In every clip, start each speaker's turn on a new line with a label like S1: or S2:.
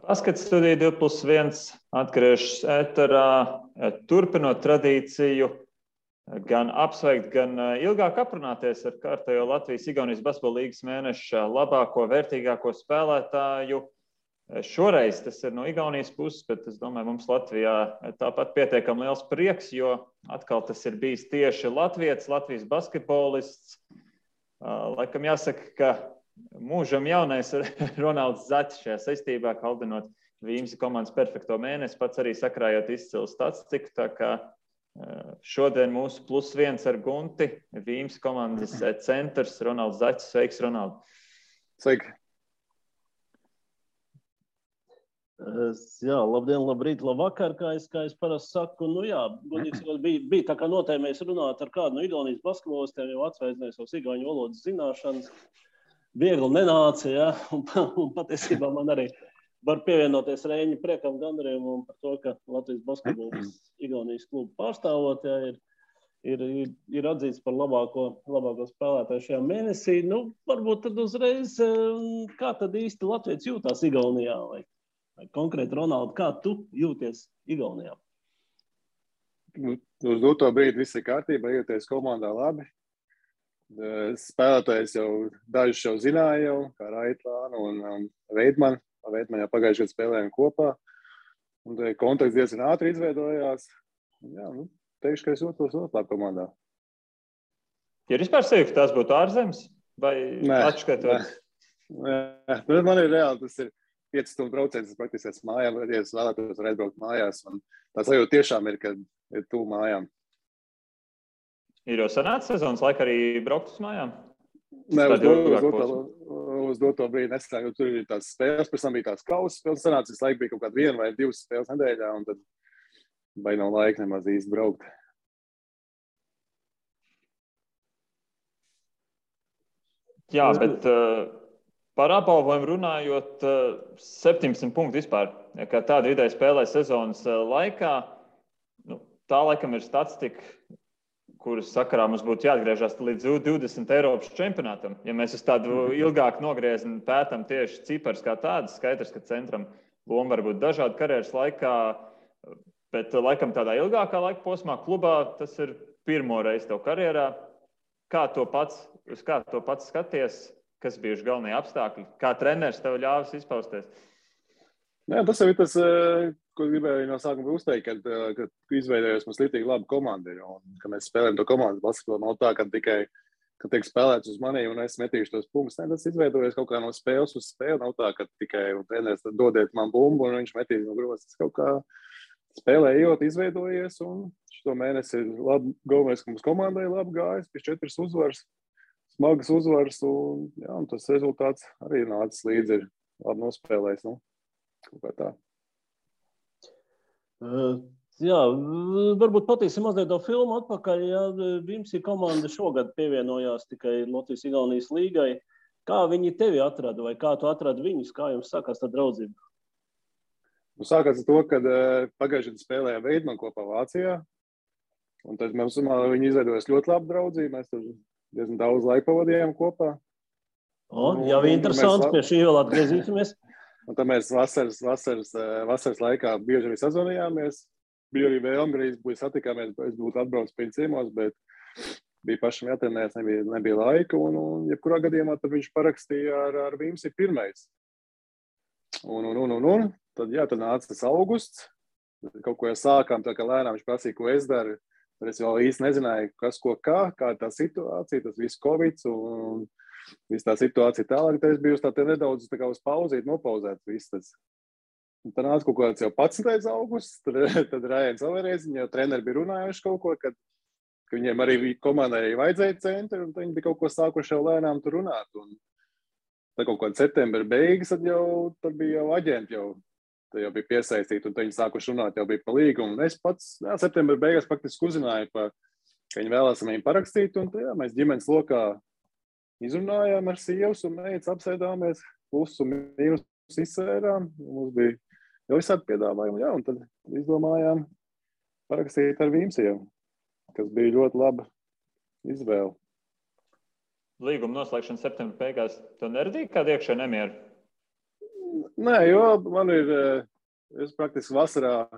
S1: Baskets studija 2+1 atgriežas ēterā, turpinot tradīciju, gan apsveikt, gan ilgāk aprunāties ar kārtējo Latvijas-Igaunijas basketbola līgas mēneša labāko, vērtīgāko spēlētāju. Šoreiz tas ir no Igaunijas puses, bet es domāju, mums Latvijā tāpat pietiekami liels prieks, jo atkal tas ir bijis tieši Latvijas basketbolists. Laikam jāsaka, ka mūžam jaunais Ronalds Zaķis šajā saistībā, kaldinot Vīmsi komandas perfekto mēnesi, pats arī sakrājot izcilu statistiku, tā kā šodien mūsu +1 ar Gunti, Vīmsi komandas centrs Ronalds Zaķis. Sveiks, Ronald!
S2: Sveiki! Jā, labdien, labrīt, labvakar, kā es parasti saku. Nu jā, bija tā kā notēmējis runāt ar kādu no Igaunijas basketbolistiem, jau atsveicinājis savas igauņu valodas zināšanas. Viegli nenāca, ja? Un patiesībā man arī var pievienoties Reiņa priekam gandarījumam par to, ka Latvijas basketbols Igaunijas klubu pārstāvot, ja, ir atzīts par labāko spēlētāju šajā mēnesī. Nu, varbūt tad uzreiz, kā tad īsti Latvijas jūtās Igaunijā? Vai konkrēti, Ronaldi, kā tu jūties Igaunijā?
S3: Uz doto brīdi viss ir kārtībā, jūties komandā labi. Spēlētājs jau dažus jau zināja jau, kā Raitlānu un Veidmanu. Veidmanu jau pagājušajā gadā spēlējām kopā. Un kontakts diezgan ātri izveidojās. Jā, teikšu, ka es jūtos ļoti labi komandā.
S1: Ja vispār sevi, ka tās būtu ārzemes? Vai atšķirot?
S3: Nē, man ir reāli, tas ir 5 stundu brauciens, es praktiski esmu mājām, ja es vēlētos var aizbraukt mājās. Un tā sajūta tiešām ir, kad ir tuvu mājām.
S1: Ir jau sanāca sezonas laika arī braukt uz mājām?
S3: Nē, uz doto brīdi nesanāk, jo tur ir tās spēles, pēc tam bija tās kausas spēles, sanāca, visu laiku bija kaut kāda 1 vai 2 spēles nedēļā, un tad vai nav laika nemaz īsti braukt.
S1: Jā, bet par apbalvojumu runājot, 17 punkti vispār, kā tāda vidēji spēlē sezonas laikā, tā laikam ir statistika, kuras sakarā mums būtu jāatgriežas līdz 20 Eiropas čempionātam. Ja mēs uz tādu ilgāku nogriezni pētam tieši cipars kā tādas, skaidrs, ka centram loma var būt dažādi karjeras laikā, bet laikam tādā ilgākā laika posmā klubā tas ir pirmo reizi tev karjerā. Uz kā to pats skaties? Kas bijuši galvenie apstākļi? Kā treneris tev ļāvis izpausties?
S3: Jā, tas jau ir tas, ko gribēju no sākuma uzteikt, kad izveidojos mums līdzīgi labi komandi. Un, kad mēs spēlējam to komandas basketbolu, nav tā, ka tikai, kad tiek spēlēts uz mani un es metīšu tos punktus. Ne, tas izveidojas kaut kā no spēles uz spēli. Nav tā, ka tikai treneris dodiet man bumbu un viņš metīs no grozas. Tas kaut kā spēlē ejot, izveidojies. Un šo mēnesi ir labi, galvenais, ka mums komandai labi gājas, pēc 4 uzvaras. Smagas uzvaras, un tas rezultāts arī nācis līdzi, ir labi nospēlējis. Kaut kā tā.
S2: Jā, varbūt patīsim mazliet to filmu atpakaļ. Ja Vimsi komanda šogad pievienojās tikai Latvijas-Igaunijas līgai. Kā viņi tevi atrada vai kā tu atradi viņus? Kā jums sākās tā draudzība?
S3: Sākās ar to, kad pagājušajā gadā spēlējām Veidmanu kopā Vācijā. Un tad viņi izveidojas ļoti labu draudzību. Mēs tur diezgan daudz laika pavadījām kopā.
S2: Jā, interesanti, pie šī vēl atgriezīsimies.
S3: Un tad mēs vasaras laikā bieži arī sazvanījāmies. Bija arī vēlme, arī satikāmies, es būtu atbraucis pie ciemos, bet bija pašam jātrenējas, nebija laika. Un jebkurā gadījumā tad viņš parakstīja ar Vimsi pirmais. Tad nāca tas augusts. Kaut ko jau sākām, tā kā lēnām viņš prasīja, ko es daru. Tad es vēl īsti nezināju, kas, ko, kā tā situācija, tas viss Covid un viss tā situācija tālāk. Tad es biju uz tā nedaudz tā kā uz pauzīt, nopauzēt viss tas. Un tad nāca kaut kāds jau 11. augusts, tad Rājens Averēs, viņi jau treneri bija runājuši kaut ko, ka viņiem arī komandai vajadzēja centri, un viņi bija kaut ko sākuši jau lēnām tur runāt. Un tad kaut kādā septembra beigas, tad bija jau aģenti jau bija piesaistīti, un viņi sākuši runāt, jau bija pa līgumu. Un es pats septembra beigās faktiski uzzināju, ka viņi vēlās viņu parakstīt, un mēs ģimenes lokā izrunājām ar sievas un meitas, apsēdāmies, plus un mīnus izsvērām. Mums bija jau visādi piedāvājumi, un tad izdomājām parakstīt ar Vimsiem, kas bija ļoti laba izvēle.
S1: Līguma noslēgšana septembra beigās, tu neradīji kādu iekšēju nemieru?
S3: Nē, jo man ir, es praktiski vasarā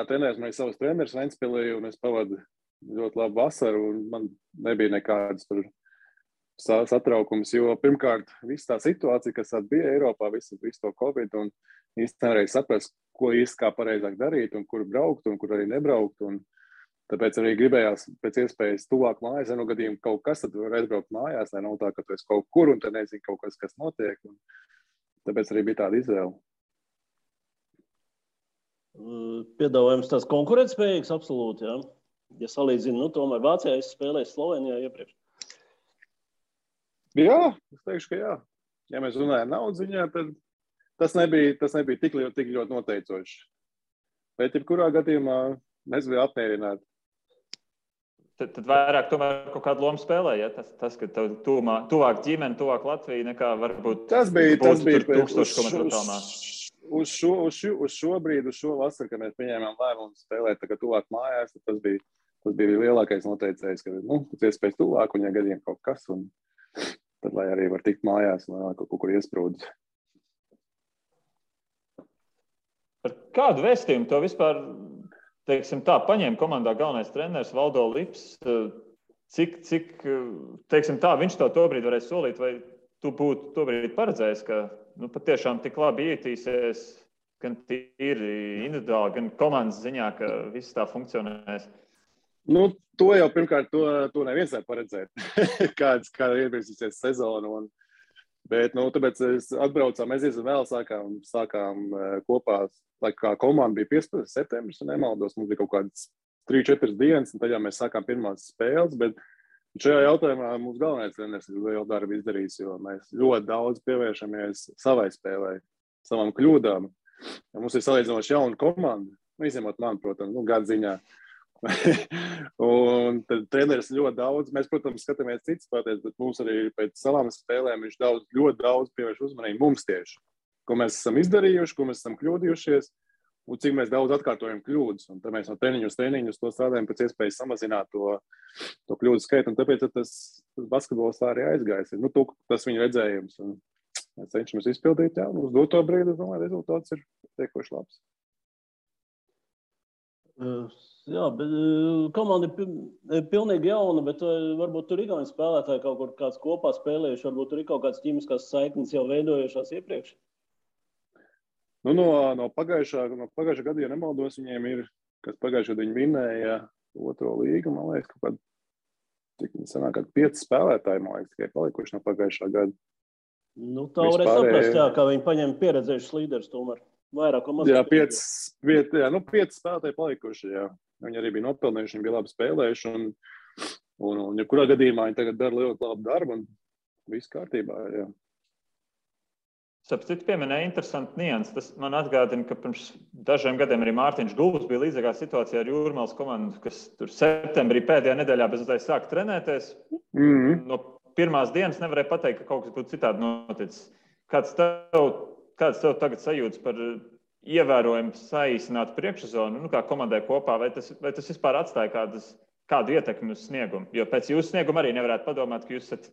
S3: trenēju, man ir savs treneris Ventspilī, un es pavadu ļoti labu vasaru, un man nebija nekādas tur satraukums, jo pirmkārt, visa tā situācija, kas bija Eiropā, visu to Covid, un īsti nevarēja saprast, ko īsti kā pareizāk darīt, un kur braukt, un kur arī nebraukt, un tāpēc arī gribējās pēc iespējas tuvāk mājās, ja no gadījuma kaut kas, tad var aizbraukt mājās, lai nav tā, ka tu esi kaut kur, un tad nezinu kaut kas notiek, un tāpēc arī bija tāda izvēle.
S2: Piedāvājums tās konkurētspējīgs absolūti, jā. Ja salīdzinu, tomēr Vācijā es spēlēju Slovenijā iepriekš.
S3: Jā, es teikšu, ka jā. Ja mēs runājam naudas ziņā, tad tas nebija tik ļoti noteicoši. Bet jebkurā gadījumā mēs bijām apmierināti.
S1: Tad vairāk tomēr kaut kādu lomu spēlē, ja? Tas ka tev tuvāk ģimene, tuvāk Latvija, nekā varbūt
S3: tas bija
S1: 1000 kilometru tālmā.
S3: Uz šo vasaru, kad mēs pieņēmām lēmumu spēlēt tagad tuvāk mājās, tas bija lielākais noteicējs, ka tas iespējas tuvāk, un ja gadiem kaut kas, un tad lai arī var tikt mājās, un kaut kur iesprūdus.
S1: Par kādu vēstījumu to vispār, teiksim tā, paņēma komandā galvenais treneris Valdo Lips? Cik teiksim tā, viņš to tobrīd varēja solīt, vai tu būtu tobrīd paredzējis, ka patiešām tik labi ietīsies gan tīri individuāli, gan komandas ziņā, ka viss tā funkcionēs?
S3: To jau pirmkārt, to neviens var paredzēt, kāda ievirzīsies sezona. Bet, tāpēc atbraucām, mēs vēl sākām kopā, lai kā komanda bija 15. septembris, un nemaldos, mums bija kaut kādas 3-4 dienas, un tad jau mēs sākām pirmās spēles, bet šajā jautājumā mums galvenais treneris ir lielu darbu izdarījis, jo mēs ļoti daudz pievēršamies savai spēlē, savām kļūdām. Ja mums ir salīdzinoši jauna komanda, izņemot man, protams, gadu ziņā. Un tad treneris ļoti daudz, mēs, protams, skatāmies citas spēlētājs, bet mums arī pēc savām spēlēm viņš ļoti daudz pievērš uzmanību mums tieši, ko mēs esam izdarījuši, ko mēs esam kļūdījušies, un cik mēs daudz atkārtojam kļūdas. Un tad mēs no treniņus to strādājam pēc iespējas samazināt to kļūdu skaitu, un tāpēc tas basketbols tā arī aizgājis. Tas viņa redzējums, un mēs cenšamies izpildīt, jā, un uz doto brīdi, es domāju, rezultāts ir tiekoši labs.
S2: Jā, bet komanda ir pilnīgi jauna, bet varbūt tur igauņu spēlētāji kaut kur kāds kopā spēlējuši, varbūt tur ir kaut kāds ķīmiskās saiknes jau veidojušās iepriekš?
S3: No pagājušā gada, ja nemaldos, viņiem ir, kas pagājušā gada viņi vinēja 2. līgu, man liekas, kaut kādi, cik sanāk, 5 spēlētāji, man liekas, tikai palikuši no pagājušā gada.
S2: Tā varēja saprast, jā, kā viņi paņem pieredzējušas līderus tomēr. Vairāk un mazāk.
S3: Jā, 5 spēlētāji palikuši, jā. Viņi arī bija nopelnījuši, viņi bija labi spēlējuši, un jebkurā gadījumā viņi tagad dara ļoti labu darbu, un viss kārtībā, jā.
S1: Sapcīt pieminēja interesanti nianses. Tas man atgādina, ka pirms dažiem gadiem arī Mārtiņš Gulbs bija līdzīgā situācijā ar Jūrmālas komandu, kas tur septembrī pēdējā nedēļā bez uztais sāk trenēties. No pirmās dienas nevarēja pateikt, ka kaut kas būtu citādi noticis. Kāds tev tagad sajūtas par ievērojumu saīsinātu priekšsezonu, kā komandai kopā, vai tas vispār atstāja kādu ietekmi uz sniegumu? Jo pēc jūsu snieguma arī nevarētu padomāt, ka jūs esat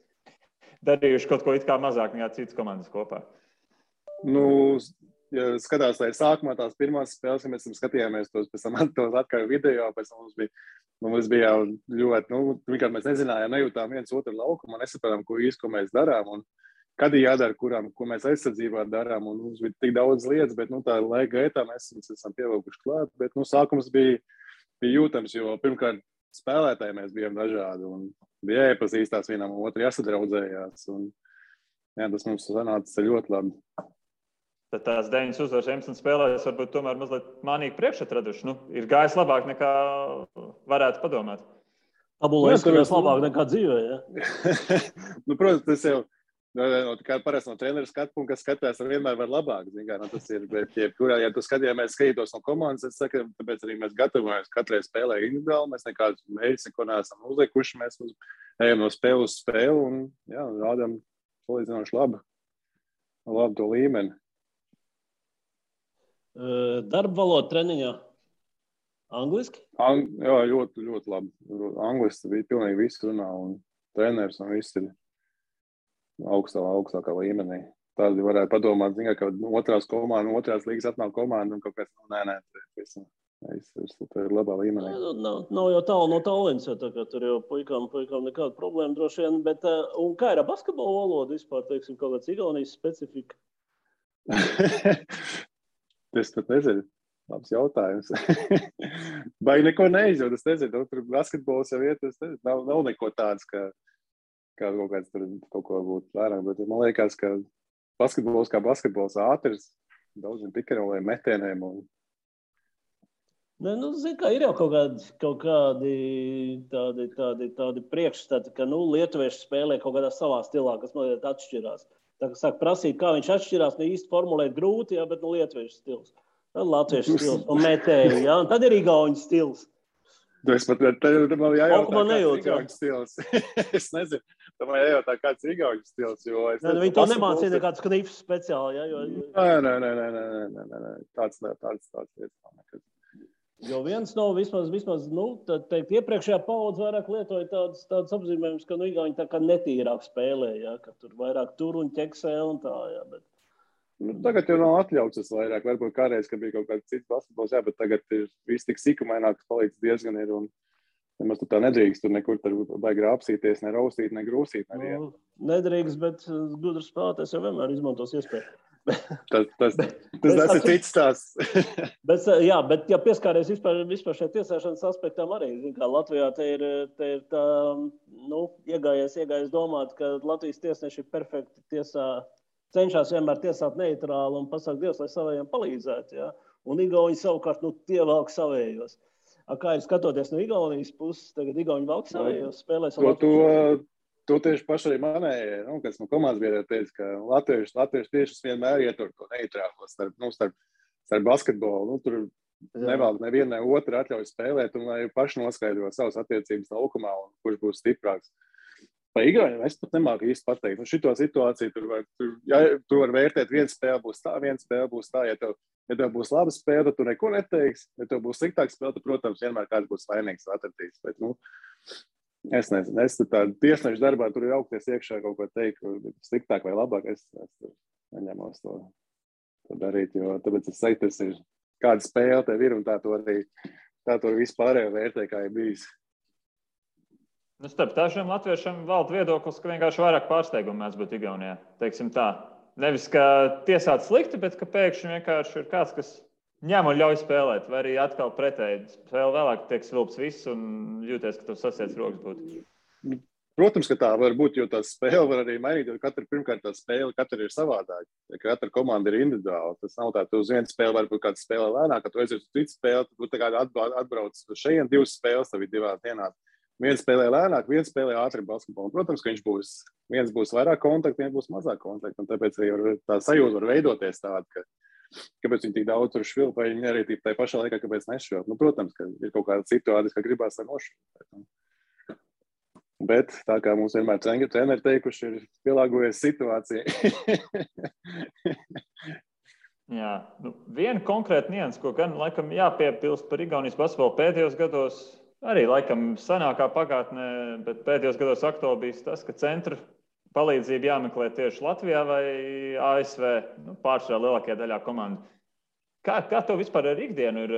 S1: darījuši kaut ko it kā mazāk nekā citas komandas kopā.
S3: Ja skatās, lai sākumā tās pirmās spēles, ja mēs skatījāmies tos atkārt video, pēc tam mums bija ļoti, vienkārši mēs nezinājām, nejūtām viens otru laukumu, nesapratām, ko mēs darām, un kad ir jādara, ko mēs aizsardzībā darām, un mums bija tik daudz lietas, bet tā laika gaitā mēs esam pievilkuši klāt, bet sākums bija jūtams, jo pirmkārt spēlētāji mēs bijām dažādi, un bija jāiepazīstās vienam un otru, jāsadraudzējās, un jā, tas mums sanāca ļoti labi.
S1: Tad tās 9 uzvaras 11 spēlēs varbūt tomēr mazliet mānīgi priekšatraduši. Ir gājis labāk nekā varētu padomāt.
S2: Tabulā izskatās labāk nekā dzīvē, ja?
S3: Protams, tas jau parasti no treneru skatu punkta, kas skatās, vienmēr var labāk. Tas ir, bet ja tu skatītos no komandas, es saku, tāpēc arī mēs gatavojamies katrai spēlē individuāli, mēs nekādus mērķus neko neesam uzlikuši, mēs ejam no spēles uz spēli un jā, rādām salīdzinoši labu to līmeni.
S2: Darba valoda treniņā angliski?
S3: Jā, ļoti, ļoti labi. Angliski bija pilnīgi viss runā un treneris un viss ir augstākā līmenī. tādi varētu padomāt, ka otrās līgas atnāk komanda un kaut kas, nē, tas ir labā līmenī.
S2: Nav jau tālu no Tallinas, jo tā kā tur jau puikām nekāda problēma droši vien, bet un kā ir ar basketbolu valodu vispār, teiksim, kaut kāds Igaunijas specifika?
S3: Es pat nezinu. Labs jautājums. Vai neko neizjūt, es nezinu, tur basketbols jau iet, nav neko tāds, kā kaut kāds tur kaut ko būtu vairāk, bet man liekas, ka basketbols kā basketbols ātrs, daudziem pikaroliem, metieniem un...
S2: Ne, zin kā, ir jau kaut kādi tādi priekšstati, ka, lietuvieši spēlē kaut kādā savā stilā, kas mazliet atšķirās. Tā kā sāk prasīt, kā viņš atšķirās, īsti formulēt grūti, jā, bet lietuviešu stils. Tad latviešu stils un metēji, jā, un tad ir igauņu stils.
S3: Es pat man jājautā,
S2: nejūt,
S3: kāds igauņu stils. Es nezinu, man jājautā, kāds igauņu stils, jo es nezinu.
S2: Viņi to nemācīja nekāds knifs speciāli, jā?
S3: Nē. Tāds lietas.
S2: Jo viens nav vismaz teikt, iepriekšējā paudze vairāk lietoja tādas apzīmējumus, ka igauņi tā kā netīrāk spēlē, jā, ka tur vairāk tur un ķeksē un tā, jā, bet...
S3: Tagad jau nav atļauts tas vairāk. Varbūt kādreiz, ka bija kaut kāds cits basketbols, jā, bet tagad ir viss tik sikumaināk, ka palīdz diezgan ir. Un nemaz tu tā nedrīkst tur nekur baigi rāpsīties, ne raustīt, ne grūsīt.
S2: Nedrīkst, bet gudrs spēlētājs jau vienmēr izmantos iespēju.
S3: Tas ir cits stāsts.
S2: bet ja pieskāries vispār šai tiesāšanas aspektam arī, kā Latvijā te ir tā, iegājies domāt, ka Latvijas tiesneši ir perfekti tiesā, cenšas vienmēr tiesāt neitrāli un pasaka Dievs, lai savējiem palīdzētu, jā. Un igauņi savukārt, tie velk savējos. Kā ir skatoties no Igaunijas puses, tagad igauņi velk savējos, spēlēs ar Latvijas?
S3: To tieši paši arī manējie, kas no komandas biedriem teica, ka latvieši tiešas vienmēr ietur to neitrālo starp basketbolu. Tur nevēl neviena otra atļauj spēlēt un lai paši noskaidro savas attiecības laukumā un kurš būs stiprāks. Pa igauņiem es pat nemāku īsti pateikt. Šito situāciju tur var vērtēt, viena spēle būs tā. Ja tev būs laba spēle, tad tu neko neteiksi. Ja tev būs sliktāka spēle, tad, protams, vienmēr kāds būs vainīgs atradīs. Bet, es nezinu, es tiesnešu darbā tur ir augties iekšā kaut ko teikt, sliktāk vai labāk. Es neņemos to darīt, jo tāpēc es teiktu, tas ir kāda spēle tev ir un tā to arī vispārējo vērtē, kā ir bijis.
S1: Starp dažiem latviešiem valda viedoklis, ka vienkārši vairāk pārsteigumu mēs būtu Igaunijā. Teiksim tā. Nevis, ka tiesāt slikti, bet ka pēkšņi vienkārši ir kāds, kas ņem un ļauj spēlēt. Vai arī atkal pretēji spēle vēlāk tiek svilps viss un jūties, ka tu sasiec rokas būtu.
S3: Protams, ka tā var būt, jo tā spēle var arī mainīt, jo pirmkārt tā spēle katra ir savādāka. Katra komanda ir individuāla. Tas nav tā, tu uz vienu spēli varbūt kāda spēle lēnāk, kad tu aizies uz citu spēli, tad tu tā kā atbrauc šeit 2 spēles, tev ir 2 dienās. Viens spēlē lēnāk, viens spēlē ātri basketbolu. Protams, ka viens būs vairāk kontaktu, viens būs mazāk kontaktu. Un tāpēc arī tā sajūta var veidoties tāda, kāpēc viņi tik daudz tur švilp, vai viņi arī tā pašā laikā, kāpēc nešvilp. Protams, ka ir kaut kāda situācija, ka gribās ar nošvilpēt. Bet tā kā mums vienmēr treneri teikuši, ir pielāgojies situācijai.
S1: Jā, viena konkrēta nianses, ko gan laikam jāpiepilst par Igaunijas basketbolu pēdējos gados, arī laikam senākā pagātnē, bet pēdējos gados aktuāli bijis tas, ka centru palīdzību jāmeklē tieši Latvijā vai ASV, pārsvarā lielākajā daļā komandu. Kā tev vispār ar ikdienu ir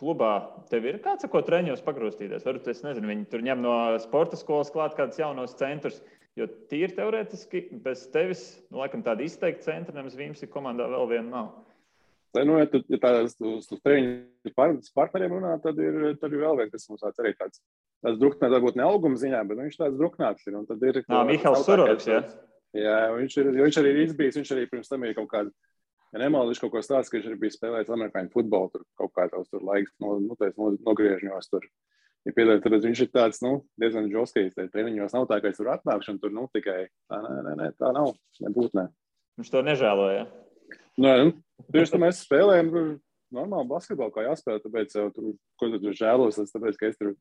S1: klubā? Tev ir kāds, ko treņos pagrūstīties? Varbūt, es nezinu, viņi tur ņem no sporta skolas klāt kādus jaunos centrus, jo tīri teorētiski bez tevis, laikam tāda izteikta centra, nemaz Vīmsi komandā vēl viena nav.
S3: Ja tādās uz treniņu partneriem runā, tad ir vēl viens, kas mums arī tāds druknāts, varbūt ne auguma ziņā, bet viņš tāds druknāts ir. Un tad ir
S1: Mihals Suroviks, jā?
S3: Jā, viņš arī ir izbijis, viņš arī pirms tam ir kaut kādu, nemaldiši kaut ko stāsts, ka viņš arī bija spēlējis amerikāņu futbolu, tur kaut kā tavs tur laiks nogriežņos tur. Ja piedāvāt, tad viņš ir tāds, diezgan žoskajs, treniņos nav tā, ka es tur atnākšu un tur, tikai tā nav, nebūt nē.
S1: Viņš to nežēloja,
S3: Tieši tā mēs spēlējam normālu basketbolu, kā jāspēlē, tāpēc ko tu žēlos, tāpēc, ka es tur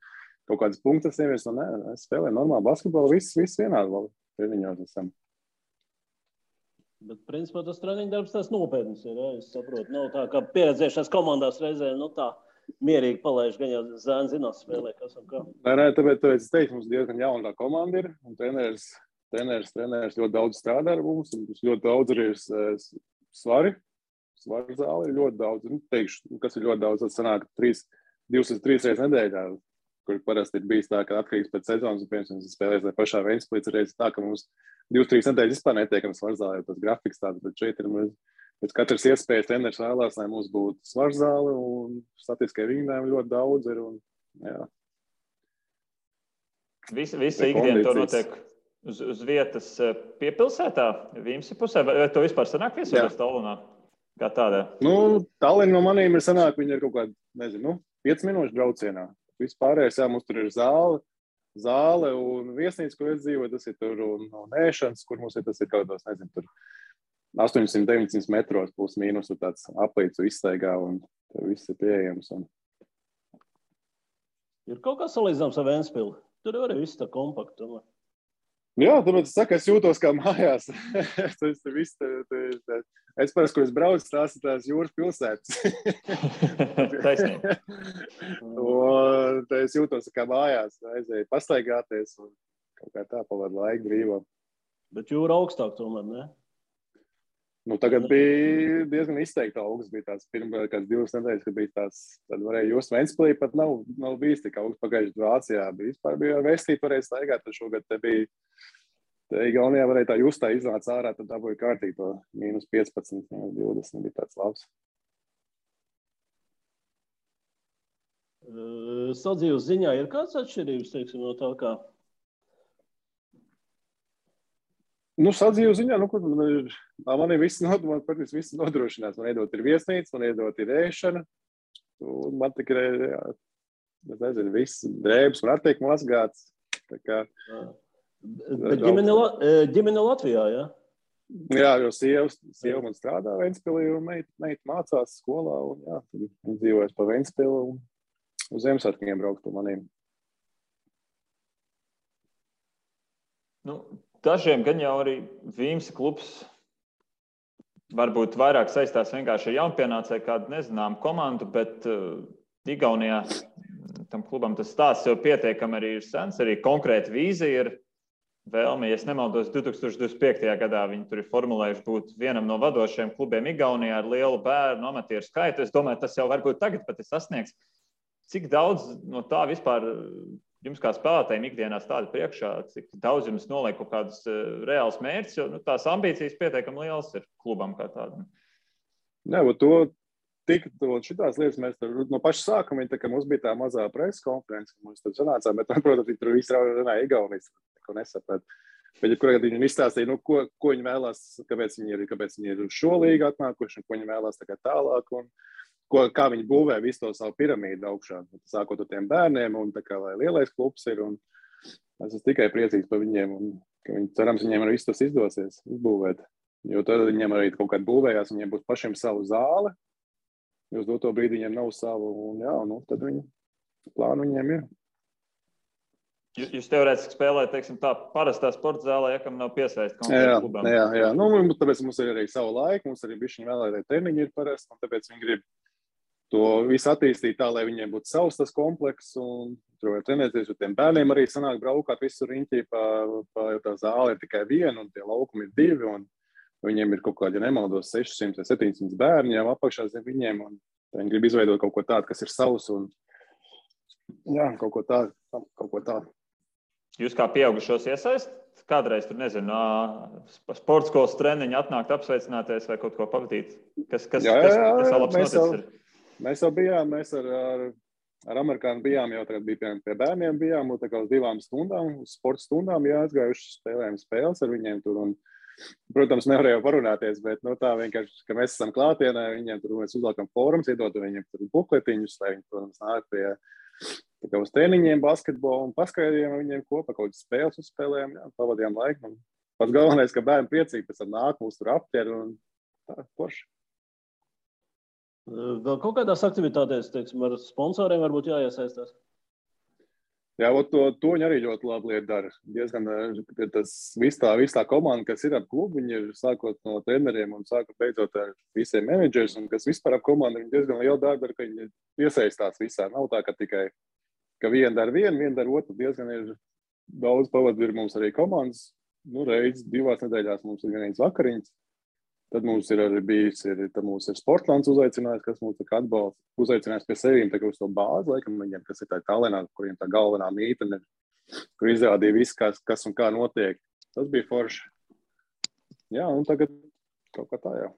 S3: kaut kādas punktas nevies, es spēlēju normālu basketbolu, viss vienādi treniņos esam.
S2: Bet, principā, tas treniņu darbs tas nopietns ir, es saprotu, nav tā, ka pieredzējušās komandās reizē, tā mierīgi palaiž, gan jau zēni zinās spēlē, kas un kā.
S3: Nē, tāpēc es teicu, mums diezgan jauna komanda ir, un treneris treneris ļoti daudz strādā ar mums, un ļoti daudz arī ir svari. Svaru zāle ir ļoti daudz. Teikšu, kas ir ļoti daudz, tas sanāk 2 līdz 3 reizes nedēļā, kur parasti ir bijis tā, ka atkarīgs pēc sezonas, un piemēram, spēlēs vai pašā Ventspilī reizes tā, ka mums 2-3 nedēļas vispār netiekam svaru zālē, jo tas grafiks tāds, bet šeit ir pēc katras iespējas treneris vēlās, lai mums būtu svaru zāle, un statistiskai vingrinājumi ļoti daudz ir, un jā.
S1: Visa ikdiena to notiek uz vietas piepilsētā, Vīmsi pusē, vai to vispār sanāk viesoties Tallinā? Kā tādā?
S3: Tallinn no manīm ir sanāk, viņi ir kaut kādi, nezinu, 5 minūšu braucienā. Vispārējais, jā, mums tur ir zāle un viesnīca, kur es dzīvoju, tas ir tur un ēšanas, kur mums ir, tas ir kaut kādos, nezinu, tur 800-900 metros plus mīnus, tur tāds aplīcu izstaigā un tur viss ir pieejams.
S2: Ir kaut kā salīdzināms ar Ventspili? Tur arī viss tā kompakti.
S3: Jā, tāpēc es saku, es jūtos kā mājās. Es parasti, kur es braucu, tās ir tās jūras pilsētas.
S1: Taisnīgi.
S3: Un es jūtos kā mājās, aizēju pastaigāties un kaut kā tā pavadu laiku brīvā.
S2: Bet jūra augstāk tomēr, ne?
S3: Tagad bija diezgan izteikti augsts, bija tās pirmā kāds 2 nedēļas, kad bija tās, tad varēja just Ventspilī, pat nav bijis tik augsts pagājuši Vācijā, bija Vestīt varēja staigāt, tad šogad te bija, te Igaunijā varēja tā justā iznāca ārā, tad dabūja kārtīgi to -15, -20, bija tāds labs.
S2: Sadzīves ziņā ir kāds atšķirības, teiksim, no tā kā?
S3: Sadzīves ziņā, man ir viss nodrošināts. Man iedot ir viesnīca, man iedot ir ēšana. Un man tikai, es nezinu, viss drēbes man attiek mazgāts.
S2: Bet ģimene Latvijā, jā?
S3: Jā, jo sieva man strādā Ventspilī un meita mācās skolā. Un jā, tad viņi dzīvojas pa Ventspili un uz Ziemassvētkiem braukt pa maniem.
S1: Dažiem gan jau arī Vīmsi klubs varbūt vairāk saistās vienkārši ar jaunpienācēju kādu nezināmu komandu, bet Igaunijā tam klubam tas stāsts jau pietiekami arī ir sens, arī konkrēti vīzija ir vēlme, ja es nemaldos, 2025. gadā viņi tur ir formulējuši būt vienam no vadošajiem klubiem Igaunijā ar lielu bērnu amatieru skaitu. Es domāju, tas jau varbūt tagad pat ir sasniegts. Cik daudz no tā vispār jums kā spēlētājiem ikdienā stāda priekšā, cik daudz jums noliek kaut kādus reālus mērķus, jo tās ambīcijas pietiekami lielas ir klubam kā tādam.
S3: Jā, šitās lietas mēs no paša sākuma, tā kā mums bija tā mazā preses konference, mums tur sanācām, bet, protams, viņi tur visi runāja Igaunijas, ko nesaprat. Bet, ja kurā viņi izstāstīja, ko viņi vēlās, kāpēc viņi ir uz šo līgu atnākuši, un ko viņi vēlās tā kā tālāk, un kā viņi būvē visu to savu piramīdu augšā, sākot ar tiem bērniem, un tā kā, lai lielais klubs ir, un es esmu tikai priecīgs par viņiem, un ka cerams, viņiem arī viss tas izdosies izbūvēt, jo tad viņiem arī kaut kādā būvējās, viņiem būs pašiem savu zāli, jo uz doto brīdi viņiem nav savu, un jā, tad plānu viņiem ir.
S1: Jūs teorētiski spēlējat, teiksim, tā parastā sporta zālē, ja kam nav piesaist konkrēti klubam.
S3: Jā. Tāpēc mums ir arī savu laiku, mums arī bišķiņi vēlētāji treniņi ir parasti, un tāpēc viņi grib to visu attīstīt tā, lai viņiem būtu savs tas komplekss, un tur var trenēties, jo tiem bērniem arī sanāk braukāt visur riņķī, jo tā zāle ir tikai viena, un tie laukumi ir 2, un viņiem ir kaut kādi, ja nemaldos, 600 vai 700 bērni jau apakšā zem viņiem, un viņi grib izveidot kaut ko tādu, kas ir savs, un jā, kaut ko tādu.
S1: Jūs kā pieaugušos iesaist? Kādreiz tur, nezinu, sporta skolas treniņi atnākt apsveicināties vai kaut ko pavadīt? Kas labs noticis ir?
S3: Mēs jau bijām, mēs ar amerikāņu bijām, jau tagad bija pie bērniem bijām, un tā kā uz 2 stundām, uz sporta stundām jāatgājuši spēlējām spēles ar viņiem tur, un, protams, nevarēja parunāties, bet, tā vienkārši, ka mēs esam klātienē, viņiem tur mēs uzlākam fórums, iedot viņiem tur bukletiņus, lai viņi, protams, nāk pie uz treniņiem, basketbolu un paskaidījām viņiem kopā kaut kādas spēles uzspēlējām, pavadījām laiku. Un pats galvenais, ka bērni priecīgi pēc tam nāk, mūs tur aptver un tā, forši.
S2: Vēl kaut kādās aktivitātēs, teiksim, ar sponsoriem varbūt jāiesaistās?
S3: Jā, to viņi arī ļoti labi lietu dara. Diezgan viss tā komanda, kas ir ap klubu, viņi ir sākot no treneriem un sākot beidzot ar visiem menedžers, un kas vispār ap komandu, viņi diezgan lielu darbu dara, ka viņi iesaistās visā. Nav tā, ka tikai ka viena dara vienu, viena dara otru. Diezgan ir daudz pavadu, ir mums arī komandas reiz 2 nedēļās mums ir vienīgs vakariņas. Tad mums ir arī bijis, tad mums ir Sportlands uzaicinājis, kas mums tā kā atbalsta, uzaicinājis pie sevīm tā kā uz to bāzi, laikam viņiem, kas ir tā Tallinā, kuriem tā galvenā mītene, kur izrādīja viss, kas un kā notiek. Tas bija forši. Jā, un tagad kaut kā tā jau.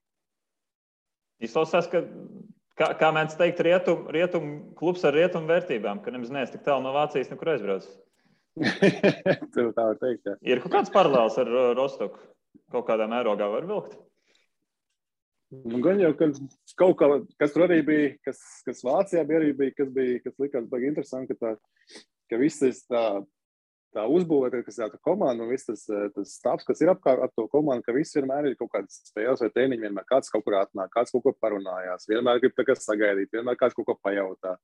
S1: Izklausās, kā mēdz teikt, rietum klubs ar rietumu vērtībām, ka nemaz neesi tik tālu no Vācijas, nekur aizbraucis.
S3: Tev tā var teikt, jā.
S1: Ir kaut kāds paralēls ar Rostoku? Kaut kādā mērogā var vilkt?
S3: Nu, gan jau, ka kaut kā, kas tur arī bija, kas Vācijā arī bija, kas likās baigi interesanti, ka viss tā uzbūvēta, kas ir tā komanda un viss tas stāvs, kas ir apkārt ar to komandu, ka viss vienmēr ir kaut kādas spēles vai treniņi, vienmēr kāds kaut kur atnāk, kāds kaut ko parunājās, vienmēr grib tā kā sagaidīt, vienmēr kāds kaut ko pajautā.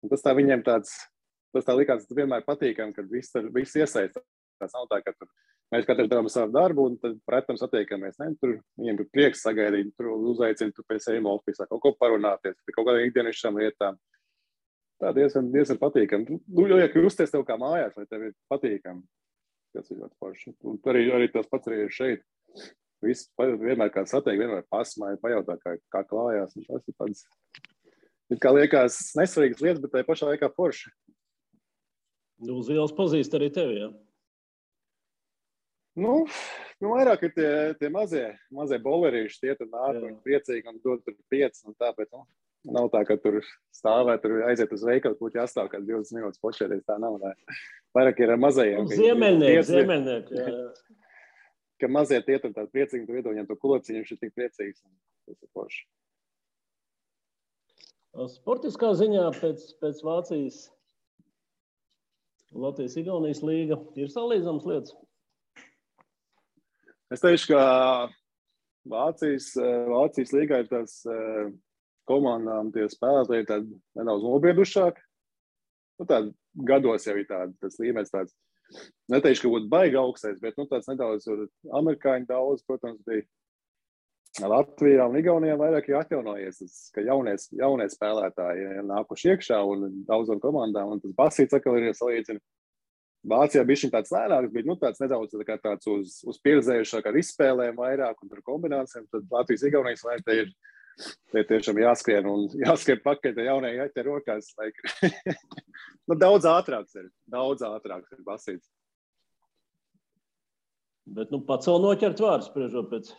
S3: Un tas tā viņiem tas tā likās, tas vienmēr patīkam, kad viss iesaistās. Tas nav tā, ka tur mēs katrs darām savu darbu un tad pretam satiekamies. Ne? Tur viņiem ir prieks sagaidīt, tur uzaicina tu pēc ejuma ofisā, kaut ko parunāties, pie kaut kādām ikdienišķām lietām. Tā diezgan patīkami. Nu, liek justies tev kā mājās, vai tev ir patīkami. Tas ir ļoti forši. Un arī tas pats arī ir šeit. Viss vienmēr kāds satiek, vienmēr pasmāja, pajautā, kā klājās. Tas ir tāds, it kā liekas nesvarīgas lietas, bet tai pašā laikā forši.
S2: Uz ielas pazīst arī tevi, jā?
S3: Nu, vairāk ir tie mazie bolerīši, tie tur nāk, viņi priecīgi un dod tur 5 un tāpēc, nav tā, ka tur stāvēt, tur aiziet uz veikalu, būtu jāstāv kāds 20 minūtes počēties, tā nav. Vairāk ir ar mazajiem.
S2: Ziemeļnieki, jā.
S3: Ka mazie tie tur tādi priecīgi, tur iedod viņam to kulociņu, viņš ir tik priecīgs. Tas ir forši.
S2: Sportiskā ziņā pēc Vācijas Latvijas-Igaunijas līga ir salīdzams lietas?
S3: Es teikšu, ka Vācijas līgā ir tās komandām tie spēlētāji tādi nedaudz nobriedušāki. Nu, tādi gados jau ir tas līmenis tāds. Neteikšu, ka būtu baigi augstais, bet tāds nedaudz amerikāņu daudz, protams, bija. Latvijā un Igaunijā vairāk ir atjaunojies, ka jaunie spēlētāji nākuši iekšā un daudzām komandām, un tas basīts atkal ir salīdzina. Vācijā bija tāds lēnāks, bija tāds nedaudz tāds uz pieredzējušāk ar izspēlēm vairāk un ar kombinācijām. Tad Latvijas Igaunijas vai te tiešām jāskrien un jāskrien pakaļ, te jaunie jāķer rokās. Nu, daudz ātrāks ir basīts.
S2: Bet pats vēl noķert vārds, spriežot pēc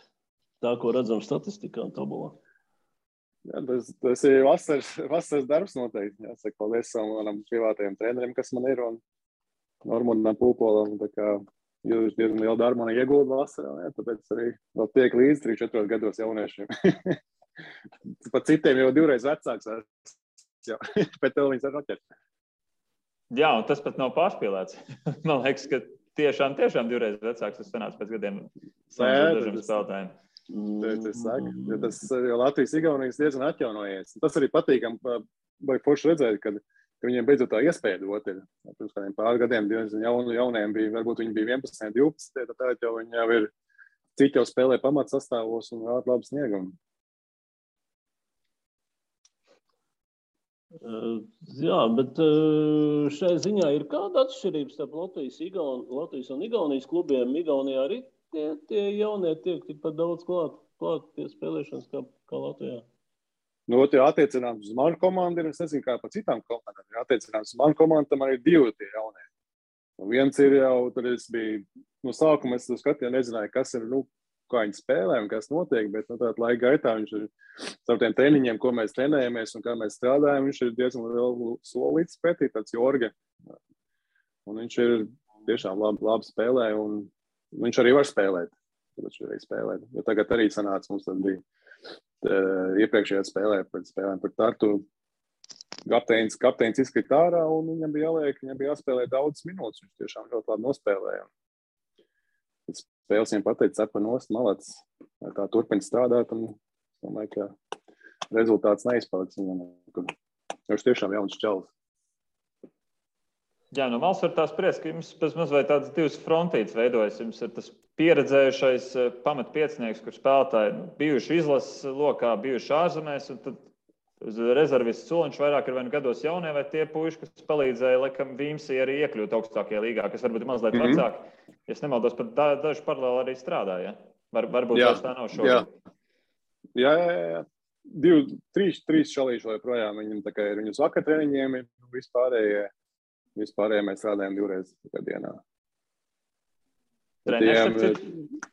S2: tā, ko redzam statistikā un tabulā.
S3: Jā, tas ir vasaras darbs noteikti. Jāsaka, paldies savam privātajam treneriem, kas man ir. Un Normundam Pūpolam, tā kā jūs diezgan lielu darbu man iegulda vasarā, jā, tāpēc arī vēl tiek līdz 3-4 gados jauniešiem. Pat citiem jau 2 reizes vecāks, jau, bet tev viņas var noķert.
S1: Jā, un tas pat nav pārspīlēts. Man liekas, ka tiešām 2 reizes vecāks tas sanāca pēc gadiem dažiem spēlētājiem.
S3: Tas saka, jo tas Latvijas-Igaunijas diezgan atjaunojies. Tas arī patīkam, vai forši redzēt, kad viņiem beidzot tā iespēja dot ir. Pirms kādiem pār gadiem jauniem bija, varbūt viņi bija 11, 12, tad jau viņi jau ir, citi jau spēlē pamatsastāvos un vēl labi sniegumu.
S2: Jā, bet šai ziņā ir kāda atšķirība starp Latvijas un Igaunijas klubiem? Igaunijā arī tie jaunie tiek tikpat daudz klāt pie spēlēšanas kā Latvijā?
S3: Nu, tie attiecināms uz manu komandu ir, es nezinu, kā pa citām komandām. Ja attiecināms uz manu komandu, tam arī 2 tie jaunie. Un viens ir jau, tad es biju, no sākuma es skatīju, nezināju, kas ir, kā viņi spēlē un kas notiek, bet tātad laika gaitā viņš ir starp tiem treniņiem, ko mēs trenējamies un kā mēs strādājam, viņš ir diezgan lielu solīts pretī, tāds Jorge. Un viņš ir tiešām labi spēlē un viņš arī var spēlēt. Tāpēc viņš arī spēlē. Jo tagad arī sanāca, mums tad bija iepriekšējā spēlē par Tartu kapteinis izkrita ārā un viņam bija jāspēlē daudzas minūtes. Viņš tiešām ļoti labi nospēlēja. Spēles viņam pateica, cepa nost, malacis. Tā turpina strādāt un domāju, ka rezultāts neizpaliks viņam. Viņš tiešām jauns čalis.
S1: Jā, no malas var tā spriest, ka jums pēc mazliet tādas 2 frontītes veidojas. Jums ir tas pieredzējušais pamatpiecinieks, kur spēlētāji bijuši izlases lokā, bijuši ārzemēs, un tad uz rezervistu soliņš vairāk ir vai nu gados jaunie, vai tie puiši, kas palīdzēja, laikam, Vīmsī arī iekļūt augstākajā līgā, kas varbūt ir mazliet vecāki. es nemaldos, pat daži paralēli arī strādā, ja? Varbūt vairs tā nav šobrīd.
S3: Jā. 3 šalīši joprojām. Viņam tā kā ir viņus vakar treniņiem, vispārējie mēs strādājam 2 reizes dienā.
S1: Treneris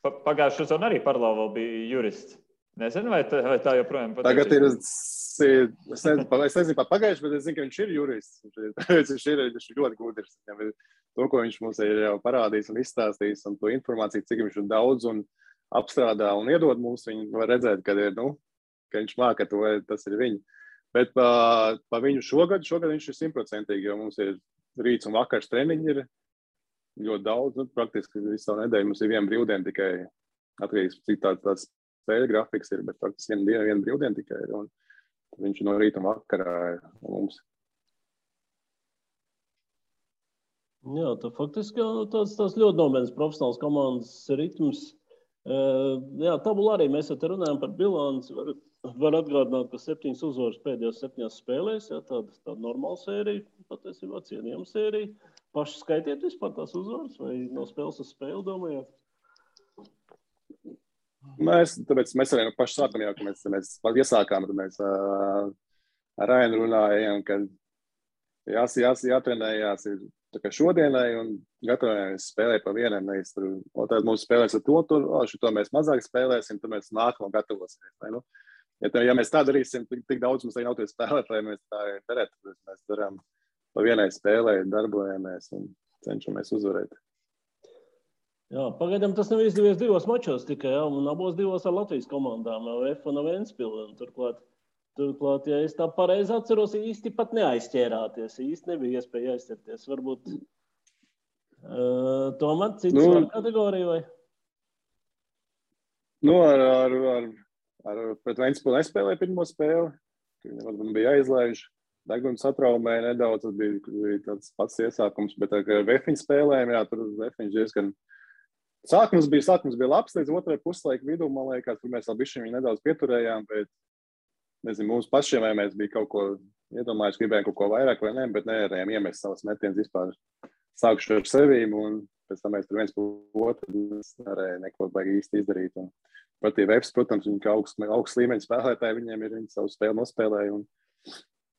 S1: pagājušajā sezonā arī paralēli vēl bija jurists. Nezinu, vai tā joprojām patīk.
S3: Tagad ir, es nezinu pat pagājuši, bet es zinu, ka viņš ir jurists. Viņš ir ļoti gudrs. To, ko viņš mums ir jau parādījis un izstāstījis, un to informāciju, cik viņš ir daudz un apstrādā un iedod mums, viņi var redzēt, ka viņš māka to, tas ir viņi. Bet pa viņu šogad viņš ir 100%, jo mums ir rīts un vakars treniņi ir ļoti daudz, praktiski visu savu nedēļu mums ir viena brīvdiena tikai, atkarīgs, cik tāds spēļu grafiks ir, bet praktiski viena brīvdiena tikai ir, un viņš no rīta un vakarā ir mums.
S2: Jā, tā faktiski tāds ļoti nopietns profesionāls komandas ritms. Jā, tabula arī mēs te runājam par bilanci. Var atgādināt, ka 7 uzvaras pēdējās 7 spēlēs, jā, tāda normāla sērija, patiesībā cienījama sērija. Paši skaitiet vispār tās uzvaras vai no spēles uz spēli, domājāt?
S3: Tāpēc mēs arī no paša sākam jau, ka mēs iesākām, tad mēs ar Rainu runājām, ka jātrenējās ir tā kā šodienai un gatavojamies spēlēt pa vienam. Tad mums spēlēs ar šito mēs mazāk spēlēsim, tad mēs nākamo gatavosimies. Ja mēs tā darīsim, tik daudz mums nav tie spēlēt, lai mēs tā darētu. Mēs darām pa vienai spēlē, darbojamies un cenšamies uzvarēt.
S2: Jā, pagaidām tas nav izdevies 2 mačos tikai, jā, un abos 2 ar Latvijas komandām, F un Ventspili. Turklāt, ja es tā pareizi atceros, īsti pat neaizķērāties, īsti nebija iespēja aizķerties. Varbūt tomēr cits var kategorija vai?
S3: Pret Ventspili nespēlēja pirmo spēli. Viņam varbūt bija jāizlaiž. Deguns satraumēja nedaudz, tas bija tāds pats iesākums, bet ar Vefiņu spēlējām, jā, tur Vefiņš diezgan... Sākums bija labs, līdz otrai puslaika vidū, man liekas, kur mēs vēl bišķiņu viņu nedaudz pieturējām, bet nezinu, mums pašiem vai mēs bija kaut ko iedomājuši, gribējām kaut ko vairāk vai ne, bet nevarējām iemest savas metienas vispār sākuši ar sevīm, un pēc tam mēs tur viens par otru nevarēja neko baigi īsti izdarīt. Un patīja Vefs, protams, viņi kā augsts līmeņa spēlētāji, viņiem ir viņi savu spēli nospēlēja. Un,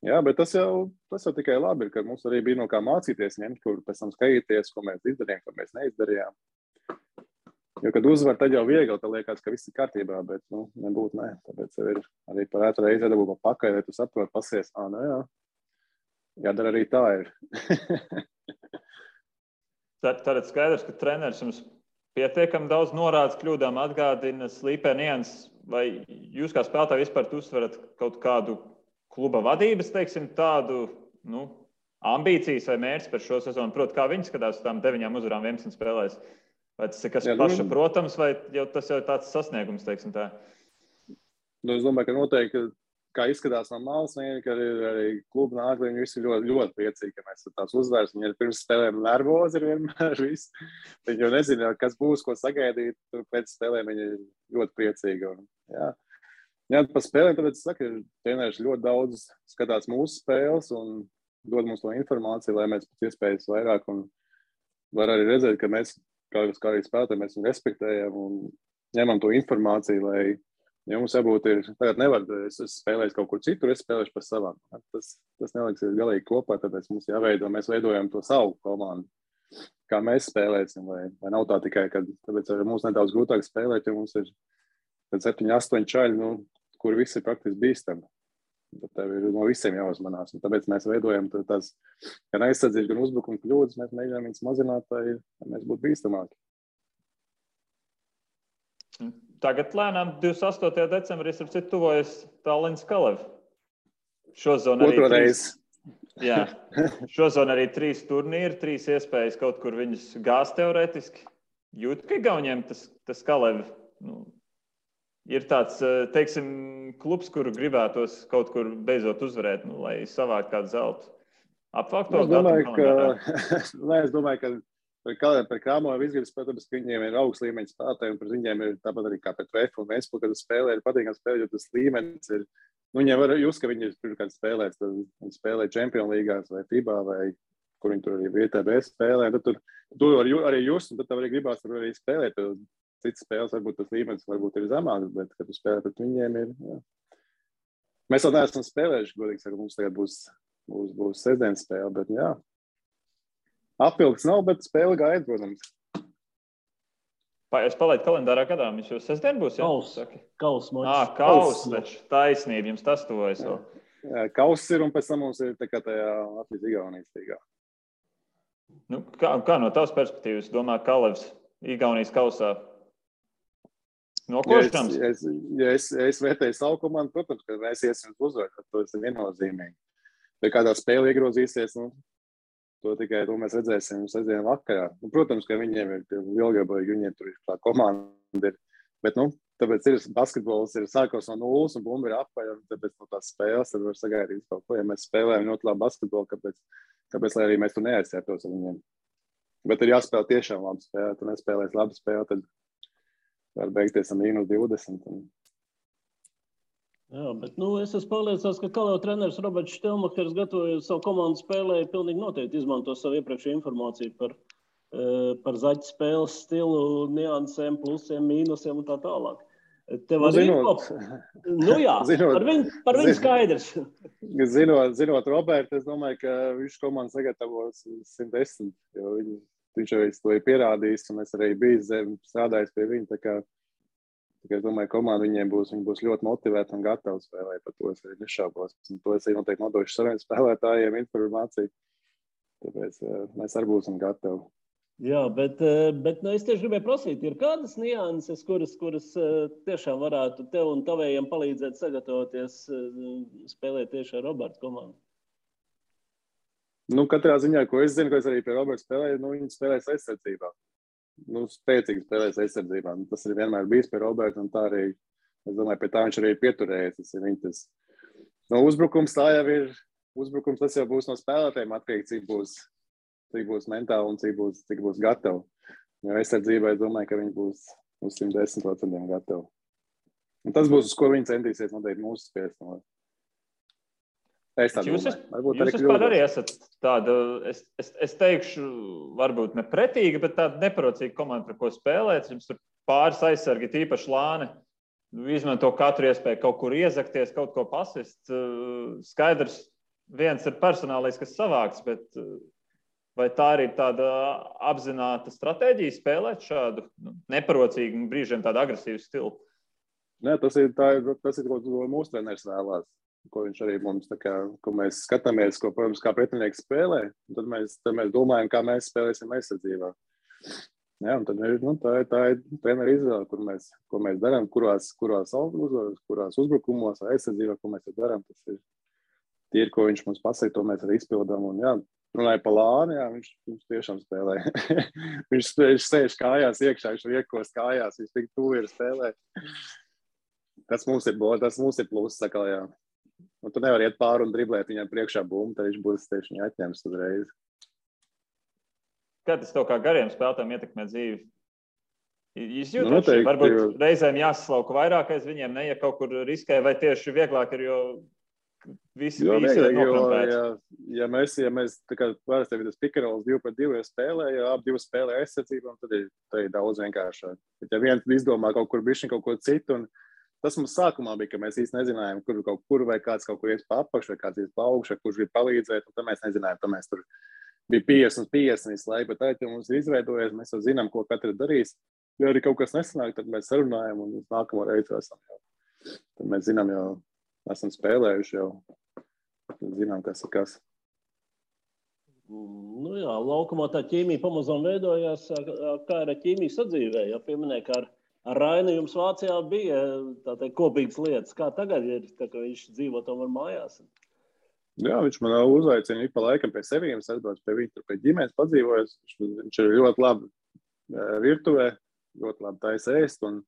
S3: jā, bet tas jau tikai labi, ka mums arī bija no kā mācīties ņemt, kur pēc tam skatīties, ko mēs izdarījām, ko mēs neizdarījām. Jo, kad uzvar, tad jau viegli, tad liekas, ka viss ir kārtībā, bet, nebūtu, nē. Tāpēc jau ir arī par ētru reizi iedabū pa pakaļ, lai tu saproti, pasies, jā. Jādara arī tā ir.
S1: Tātad skaidrs, ka treneris jums pietiekami daudz norādes kļūdām atgādina, slīpē nianses, vai jūs kā spēlētāji vispār uzsverat kaut kādu kluba vadības, teiksim, tādu, ambīcijas vai mērķis par šo sezonu? Proti, kā viņi skatās uz tām 9 uzvarām 11 spēlēs? Vai tas ir kas paša, protams, vai tas jau ir tāds sasniegums, teiksim tā?
S3: Es domāju, ka noteikti, kā izskatās no malas, ka arī kluba nāk, viņi visi ļoti, ļoti priecīgi, ka mēs tās uzvaras. Viņi ir pirms spēlēm nervozi ir vienmēr viss. Viņi jau nezina, kas būs, ko sagaidīt. Pēc spēlēm viņi ir ļoti priecīgi. Un, jā, pa spēlēm, tāpēc es saku, treneris ļoti daudz skatās mūsu spēles un dod mums to informāciju, lai mēs pēc iespējas vairāk un var arī redzēt, ka mēs kā arī spēlētāji, mēs viņu respektējam un ņemam to informāciju, lai mums jābūt ir, tagad nevar, es spēlēju kaut kur citur, es spēlēšu par savām. Tas neliksies galīgi kopā, tāpēc mums jāveido, mēs veidojam to savu komandu, kā mēs spēlēsim, vai nav tā tikai, ka tāpēc arī mums nedaudz grūtāk spēlēt, jo mums ir 7-8 čaļi, kur visi ir praktiski bīstami. Tad tev ir no visiem jāuzmanās. Un tāpēc mēs veidojam tās gan aizsardzības, gan uzbrukuma kļūdas. Mēs mēģinām viņus mazināt, lai mēs būtu bīstamāki.
S1: Tagad lēnām 28. decembrī tuvojas Tallinas Kalev. Šozon arī 3 turnīri, 3 iespējas kaut kur viņus gāzt teorētiski. Jūt, ka Igauniem tas Kalev ir tāds, teiksim, klubs, kuru gribētos kaut kur beidzot uzvarēt, lai savākt kādu zeltu. Apvākt to
S3: Es domāju, ka par Krāmovu izgribas, protams, ka viņiem ir augsts līmeņa spēlētāji, un par viņiem ir tāpat arī kā pret Vefu un Ventspili, kad spēlē ir patīkami spēlēt, jo tas līmenis ir, viņiem var just, ka viņi ir pirmkārt spēlēs, tad viņi spēlē Champions līgās vai FIBA vai kur viņi tur arī VTB spēlē. Tad tur arī just, un tad tev arī gribās tur arī spēlēt. Citas spēles varbūt tas līmenis varbūt ir zemāks, bet, kad tu spēlē pret viņiem ir, jā. Mēs vēl neesam spēlējuši, godīgi sakot, mums tagad būs sestdienas spēle, bet jā. Apvilks nav, bet spēle gaida, protams.
S1: Es palaidu kalendārā gadā, viņš jau sestdien būs, jā?
S2: Kaus mačs.
S1: Kaus, taču taisnība, jums tas tuvojas vēl.
S3: Jā, kauss ir, un pēc tam mums ir tā kā tajā Latvijas-Igaunijas līgā.
S1: Nu, kā no tavas perspektīvas domā Kalevs Igaunijas kausā? Nokošams?
S3: Ja es vērtēju savu komandu, protams, ka mēs iesim uzvaru, to ir viennozīmīgi. Ja kādā spēle iegrozīsies, to mēs redzēsim sestdien vakarā. Protams, ka viņiem ir lielgabīgi, viņiem tur ir tā komanda ir. Bet, tāpēc ir basketbols ir sākos no nulles un bumba ir apaļ, un tāpēc no tās spēles tad var sagaidīt kaut ko. Ja mēs spēlējam ļoti labu basketbolu, kāpēc lai arī mēs tur neaizsētos ar viņiem. Bet ir jāspēlē tiešām labi spēlē. Tu nespēlēsi labi spēlē, tad var beigties ar -20.
S2: Jā, bet es esmu pārliecināts, ka Kalev treneris Roberts Štelmakers gatavoja savu komandu spēlē, pilnīgi noteikti izmanto savu iepriekšēju informāciju par zaķu spēles stilu, niansēm, plusiem, mīnusiem un tā tālāk. Tev arī par viņu skaidrs.
S3: Zinot Robertu, es domāju, ka viņš komandu sagatavos 110, jo viņš jau to ir pierādījis, un es arī biju strādājis pie viņa, tā kā es domāju, komanda viņi būs ļoti motivēti un gatavi spēlēt, par to es arī nešaubos. Un to es arī noteikti nodošu saviem spēlētājiem informāciju, tāpēc mēs arī būsim gatavi.
S2: Jā, bet es tieši gribēju prasīt, ir kādas nianses, kuras tiešām varētu tev un tavējiem palīdzēt sagatavoties spēlēt tieši ar Roberta komandu?
S3: Katrā ziņā, ko es zinu, ko es arī pie Roberta spēlēju, viņi spēlēs aizsardzībā. Spēcīgi spēlēs aizsardzībā. Tas ir vienmēr bijis pie Roberta, un tā arī, es domāju, pie tā viņš arī pieturējies. Tas ir viņas. Uzbrukums tā jau ir, uzbrukums tas jau būs no spēlētājiem atkarīgi, cik būs mentāli un cik būs gatavi. Jo aizsardzībā es domāju, ka viņi būs uz 110% gatavi. Un tas būs, uz ko viņi centīsies noteikti mūsu spiest.
S1: Jūs vispār arī esat tāda, es teikšu, varbūt ne pretīga, bet tāda neparocīga komanda, par ko spēlēt. Jums tur pāris aizsargi, tīpaši Lāni, izmanto katru iespēju kaut kur iezakties, kaut ko pasist. Skaidrs, viens ir personālais, kas savāks, bet vai tā arī ir tāda apzināta stratēģija spēlēt šādu neparocīgu, brīžiem tādu agresīvu stilu?
S3: Nē, tas ir, ko mūsu treneris vēlās. Ko viņš arī mums, ko mēs skatāmies, ko, protams, kā pretinieks spēlē, un tad mēs domājam, kā mēs spēlēsim aizsardzībā. Jā, un tad tā ir treneri izvēle, ko mēs darām, kurās uzbrukumos, aizsardzībā, ko mēs darām. Tas ir tie, ko viņš mums pasaka, to mēs arī izpildām. Un jā, runāja par Lāni, jā, viņš tiešām spēlē. viņš sēž kājās iekšā, viņš riekos kājās, viņš tik tuvi ir spēlē. Tas mums ir pluss, saka, jā. Un tu nevar iet pāri un driblēt viņam priekšā bumbu, tad viņš būs tieši viņu atņems uzreiz.
S1: Kā tas tev kā gariem spēlētājiem ietekmē dzīvi? Jūs jūtat, varbūt reizēm jāsaslauka vairāk aiz viņiem, ja kaut kur riskē, vai tieši vieglāk ir, jo visi ir noklampēti?
S3: Ja mēs tā kā parasti ir tas pikarols 2-2 spēlē, ja ap 2 spēlē aizsardzībām, tad ir daudz vienkāršāk. Bet ja viens izdomā kaut kur bišķiņ kaut ko citu, un tas mums sākumā bija, ka mēs īsti nezinājām, kur vai kāds kaut kur ies pa apakšu, vai kāds ies pa augšu, kurš grib palīdzēt, un tad mēs nezinājām, tad mēs tur bija 50 visu laiku, bet tā, ja mums ir izveidojies, mēs jau zinām, ko katrs darīs. Ja arī kaut kas nesanāk, tad mēs sarunājam, un nākamo reizi esam jau. Tad mēs zinām, jau esam spēlējuši jau, tad zinām, kas ir kas.
S2: Jā, laukumā tā ķīmija pamazām veidojās, kā ir ķīmija sadzīvē, ja pieminēja, ka ar Rainu jums Vācijā bija kopīgas lietas. Kā tagad ir, tā, ka viņš dzīvo tomēr mājās?
S3: Jā, viņš man uzaicina pa laikam pie seviem, es atbraucu pie viņa, tur pie ģimenes padzīvojas. Viņš ir ļoti labi virtuvē, ļoti labi taisa ēst. Un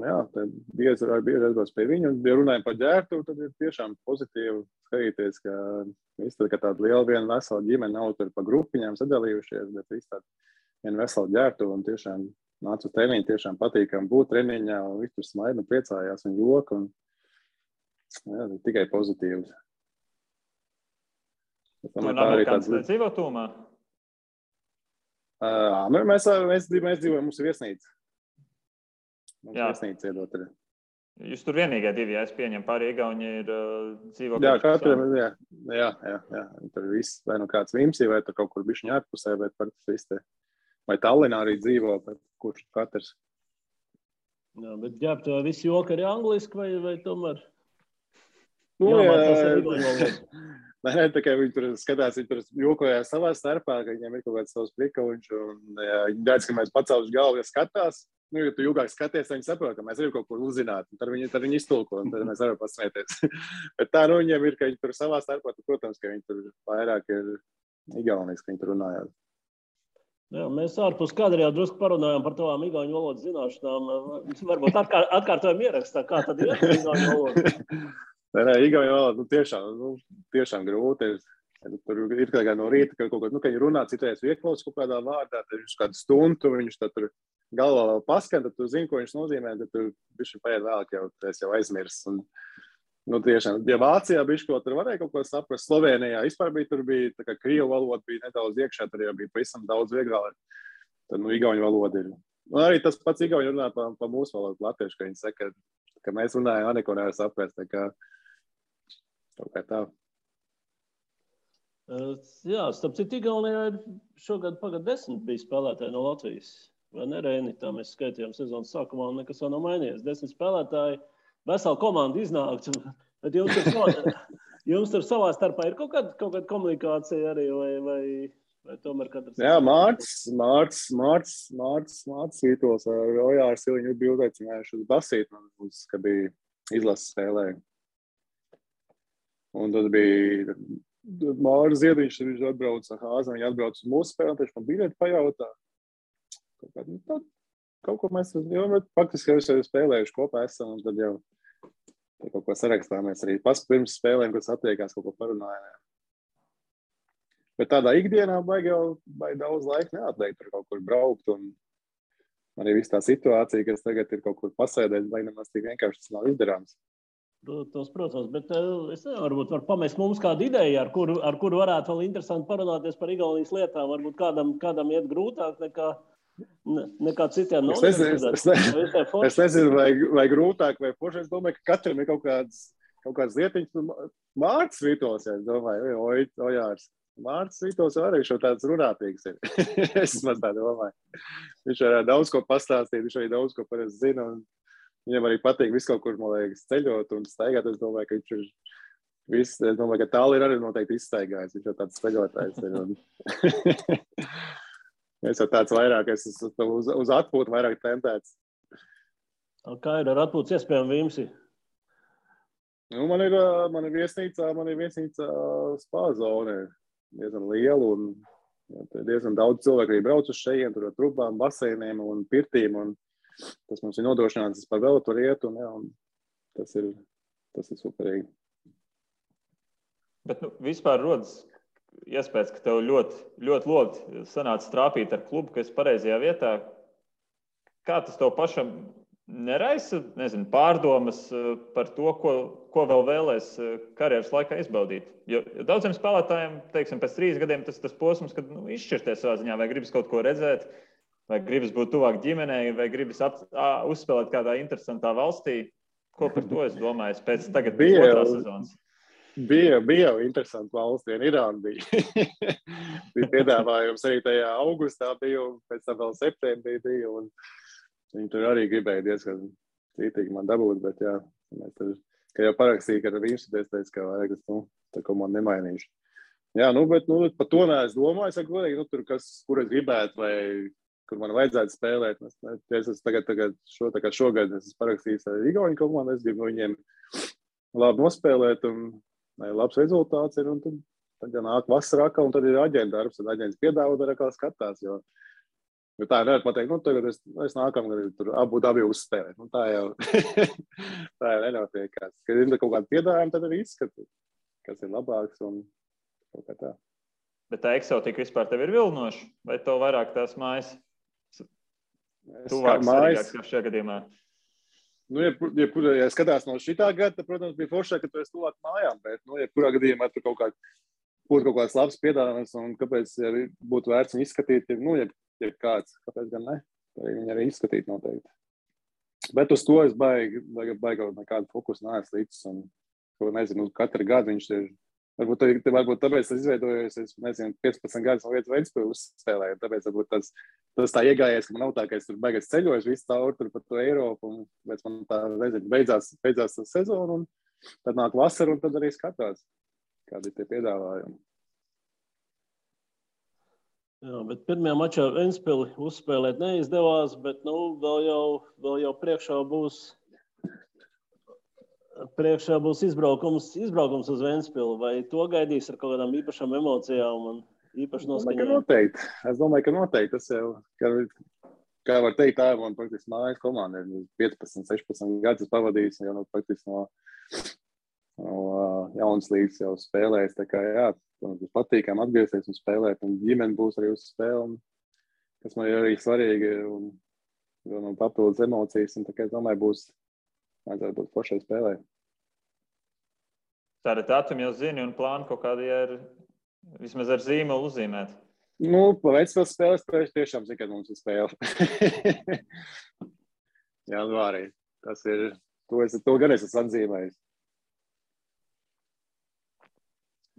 S3: jā, bieži atbraucu pie viņa. Un, ja runājam par ģērtuvi, tad ir tiešām pozitīvi skatīties, ka viss tāda liela viena vesela ģimene nav tur pa grupiņām sadalījušies, bet viss tāda viena vesela ģērtuva un tiešām nāca uz treniņu, tiešām patīkam būt treniņā, un viņš tur smaida un priecājās un joka, un jā, tikai pozitīvs.
S1: Tur amerikāns nedzīvo tūmā?
S3: Mēs dzīvojam, mums ir viesnīca. Mums viesnīca iedot arī.
S1: Jūs tur vienīgie divi, ja es pieņemu, pārējie Igauņi ir dzīvo.
S3: Jā, katram, jā. Tur viss, vai nu kāds Vimsī, vai tur kaut kur bišķiņ ārpusē, bet par tas viss te. Vai Tallinā arī dzīvo, bet kurš katrs.
S2: Jā, bet ģēbt, vai visi joki arī angliski, vai tomēr?
S3: Jā, Nē, tā kā viņi tur skatās, viņi tur jokojās savā starpā, ka viņiem ir kaut kāds savs prikauņš, un viņi redz, ka mēs pacēluši galvu, ja skatās. Ja tu ilgāk skaties, viņi saprot, ka mēs arī kaut kur uzzināt, un tad viņi iztulko, un tad mēs varam pasmēties. Bet tā, viņiem ir, ka viņi tur savā starpā, protams, ka viņi tur vairāk ir igaunis, ka viņi tur runājās.
S2: Jā, mēs ārpus kadra jau drusku parunājām par tavām igauņu valodas zināšanām. Varbūt atkārtojam ierakstā, kā tad ir igauņu valoda?
S3: Nē, igauņu valoda tiešām grūti. Tur ir kā no rīta, ka kaut ko, kad viņi runā, citreiz ieklaus kaut kādā vārdā, tad viņš kādu stundu, viņš tad tur galvā vēl paskan, tad tu zini, ko viņš nozīmē, tad tu bišķi paiet vēlāk jau aizmirsts. Un, tiešām, ja Vācijā bišķi ko tur varēja kaut ko saprast, Slovenijā vispār tur bija, tā kā krievu valoda bija nedaudz iekšā, tad jau bija pavisam daudz vieglāk. Tad, igauņu valoda ir. Un arī tas pats igauņu runā pa mūsu valodu latviešu, ka viņi saka, ka mēs runājam, neko nevar saprast, tā kā tā.
S2: Jā, starp citu, Igaunijā ir šogad pagad 10 bija spēlētāji no Latvijas. Vai ne, Reini? Tā mēs skaitījām sezonas sākumā, un nekas vēl nav mainījies. 10 spēlētāji, vesela komanda iznākts. Bet jums tur savā starpā ir kaut kāda komunikācija arī, vai tomēr katrs? Jā, Mārts Vītols ar Ojāru Siliņu bija uzaicinājuši uz basīti, ka bija izlases spēlēja. Un tad bija Māris Ziediņš, viņš atbrauca Hāzam, viņi atbrauca uz mūsu spēli, viņš man biļeti pajautā. Kaut ko mēs, faktiski jau spēlējuši kopā esam, un tad jau kaut ko sarakstāmies arī pirms spēlēm, kad satiekās, kaut ko parunājām. Bet tādā ikdienā baigi daudz laika neatliek tur kaut kur braukt, un arī viss tā situācija, kas tagad ir kaut kur pasēdēt, vai nemaz tik vienkārši tas nav izdarāms. Protams, bet es nevaru, varbūt var pamest mums kādu ideju, ar kuru varētu vēl interesanti parunāties par Igaunijas lietām. Varbūt kādam iet grūtāk nekā citiem.
S3: Es nezinu, vai grūtāk, vai poši. Es domāju, ka katram ir kaut kāds lietiņš. Mārts Vītols, ja es domāju, Ojārs. Mārts Vītols arī šo tāds runātīgs ir. Es maz tā domāju. Viņš arī daudz ko pastāstīt, viņš arī daudz ko parasti zina. Viņam arī patīk visu kaut kur, man liekas, ceļot un staigāt. Es domāju, ka viņš ir viss, es domāju, ka tāli ir arī noteikti izstaigājis. Viņš jau tāds ceļotājs ir. Es jau tāds vairāk, es uz atpūtu vairāk tentēts.
S2: Kā ir ar atpūtas iespējām Vimsi?
S3: Man ir viesnīcā spā zone. Diezgan liela un diezgan daudz cilvēku arī brauc uz šejiem, tur ar trubām, baseiniem un pirtīm. Un tas mums ir nodrošināts, par vēl tur iet, un tas ir superīgi.
S1: Bet vispār rodas iespējas, ka tev ļoti loti sanāca strāpīt ar klubu, ka esi pareizajā vietā. Kā tas tev pašam neraisa, pārdomas par to, ko vēl vēlēs karjeras laikā izbaudīt? Jo daudziem spēlētājiem, teiksim, pēc 3 gadiem tas posms, kad izšķirties savā ziņā, vai gribas kaut ko redzēt, vai gribas būt tuvāk ģimenei, vai gribas uzspēlēt kādā interesantā valstī. Ko par to es domāju pēc tagad otrās sezonas?
S3: Bija jau interesanti valsts, Irāna bija. Bija piedāvājums arī tajā augustā bija, un pēc tam vēl septembrī bija, un viņi tur arī gribēja diezgan cītīgi man dabūt, bet jā, mēs tur, ka jau parakstīja, ka ar viņš teica, ka vajag, tā ko man nemainīšu. Jā, bet par to neesmu domājis, godīgi, tur kur es gribētu, vai kur man vajadzētu spēlēt. Es šogad esmu parakstījis ar Igauņu komandu, es gribu viņiem labi nospēlēt, un labs rezultāts ir, un tad ja nāk vasarā, un tad ir aģenta darbs, un aģents piedāvā, tad atkal skatās, jo tā nevar pateikt, tagad es nākamgad tur abi uzspēlēt. Tā jau nenotiek. Kad ir kaut kāda piedāvājuma, tad arī izskatīt, kas ir labāks, un kaut kā tā.
S1: Bet tā eksotika vispār tev ir vilnoša, vai tev vairāk tās mājas? Tuvāk svarīgāks kā šajā gadījumā.
S3: Ja skatās no šitā gada, tad, protams, bija foršāk, ka tu esi tuvāk mājām, bet, jebkurā gadījumā tur kaut kā būtu kaut kāds labs piedāvājums un kāpēc būtu vērts viņu izskatīt, ja kāds, kāpēc gan ne, viņi arī izskatīt noteikti. Bet uz to es baigi nekādu fokusu neesmu līdz, un, nezinu, katru gadu viņš ir, varbūt tāpēc tas izveidojies, es nezinu, 15 gadus no vietas Ventspili uzspēlēju, tāpēc varbūt tas tā iegājies, ka man nav tā, ka es tur beigas ceļoju visu cauri tur par to Eiropu, un pēc man tā, nezinu, beidzās tā sezona, un tad nāk vasara, un tad arī skatās, kādi ir tie piedāvājumi.
S2: Jā, bet pirmajā mačā Ventspili uzspēlēt neizdevās, bet, vēl jau priekšā būs izbraukums uz Ventspili, vai to gaidīs ar kaut kādām īpašām emocijām un īpaši noskaņām?
S3: Es domāju, ka noteikti. Tas jau, kā var teikt, tā ir man praktiski mājas komanda. 15, 16 gadus pavadījis, jau praktiski no jaunas līgas jau spēlējis. Tā kā, jā, būs patīkami atgriezties un spēlēt, un ģimene būs arī uz spēli, kas man ir arī svarīgi, un papildus emocijas, un tā kā es domāju, vajadzētu būt foršai spēlē.
S1: Tātad datumi jau zini un plāni kaut kādi ir vismaz ar zīmolu uzzīmēt.
S3: Pa Ventspils spēles tiešām zinu, kad mums ir spēle. Janvārī. Tas ir, to gan es esmu atzīmējis.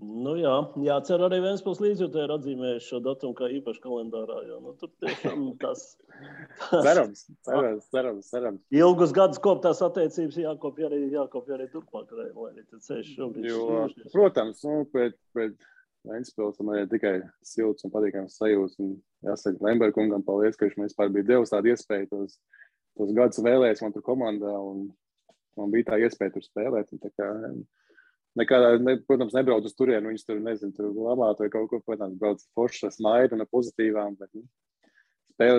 S2: Jācer arī Ventspils līdzjūtēji ir atzīmējuši šo datumu kā īpaši kalendārā, jo tur tiešām tas
S3: Cerams.
S2: Ilgus gadus koptās attiecības jākopja arī turpmāk, lai arī tad ceļš šobrīd.
S3: Protams, pēc Ventspils man ir tikai silts un patīkams sajūts, un jāsaka Lemberkungam paldies, ka viņš man vispār bija devis tādu iespēju tos gadus vēlēs man tur komandā, un man bija tā iespēja tur spēlēt, un tā kā protams, nebrauc uz turienu, viņus tur, nezinu, tur labāt vai kaut ko, protams, brauc foršas smaidu un pozitīvām, bet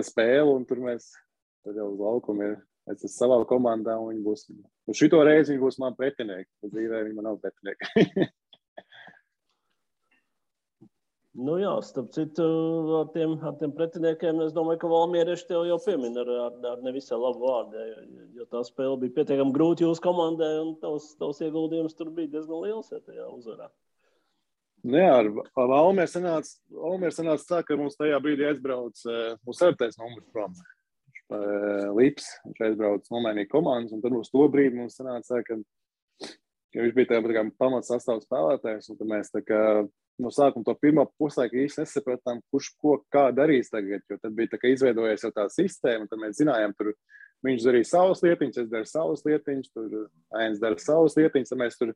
S3: spēle, un tur tur jau uz laukumu es esmu savā komandā, un viņi būs, uz šito reizi viņi būs man pretinieki, uz dzīvē viņi man nav pretinieki.
S2: Starp citu, ar tiem pretiniekiem, es domāju, ka valmierieši tev jau piemin ar nevisai labu vārdu, jo tā spēle bija pietiekami grūti jūsu komandai, un tavs ieguldījums tur bija diezgan liels, tajā uzvarā.
S3: Ar Valmieri sanāca tā, ka mums tajā brīdī aizbrauc mūsu sartais numurs prom. Lips, viņš aizbrauc nomainīja komandas, un tad uz to brīdi mums sanāca tā, ka viņš bija tā pamats sastāvs spēlētājs, un tad mēs tā kā no sākuma to pirmā puslaiku īsti nesapratām, kurš ko kā darīs tagad, jo tad bija tā, ka izveidojies jau tā sistēma, tad mēs zinājām, tur viņš darīja savas lietiņas, es daru savas lietiņas, tur Ains dara savas lietiņas, tad mēs tur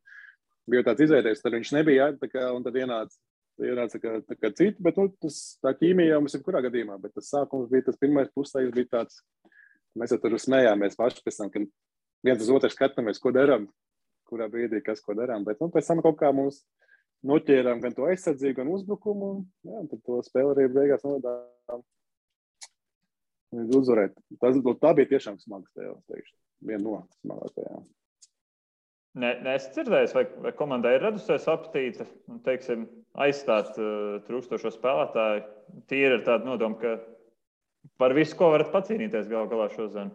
S3: bija tāds izveidojies, tad viņš nebija, un tad ienāca kā citi, bet tā ķīmija jau mums ir kurā gadījumā, bet tas sākums bija, tas pirmais puslaiks bija tāds, mēs jau tur smējāmies paši pēc tam, ka viens uz otru skatāmies, ko darām, kurā brīdī, kas ko darām, bet pēc tam kaut kā mums noķērām gan to aizsardzību, gan uzbrukumu, un tad to spēli arī beigās novedām uzvarēt. Tā bija tiešām smaga spēle, teikšu. Viena no smagākajām.
S1: Es dzirdēju, vai komandai ir radusies apetīte, teiksim, aizstāt trūkstošo spēlētāju. Tīri ir tāda nodoma, ka par visu, ko varat pacīnīties galā šodien.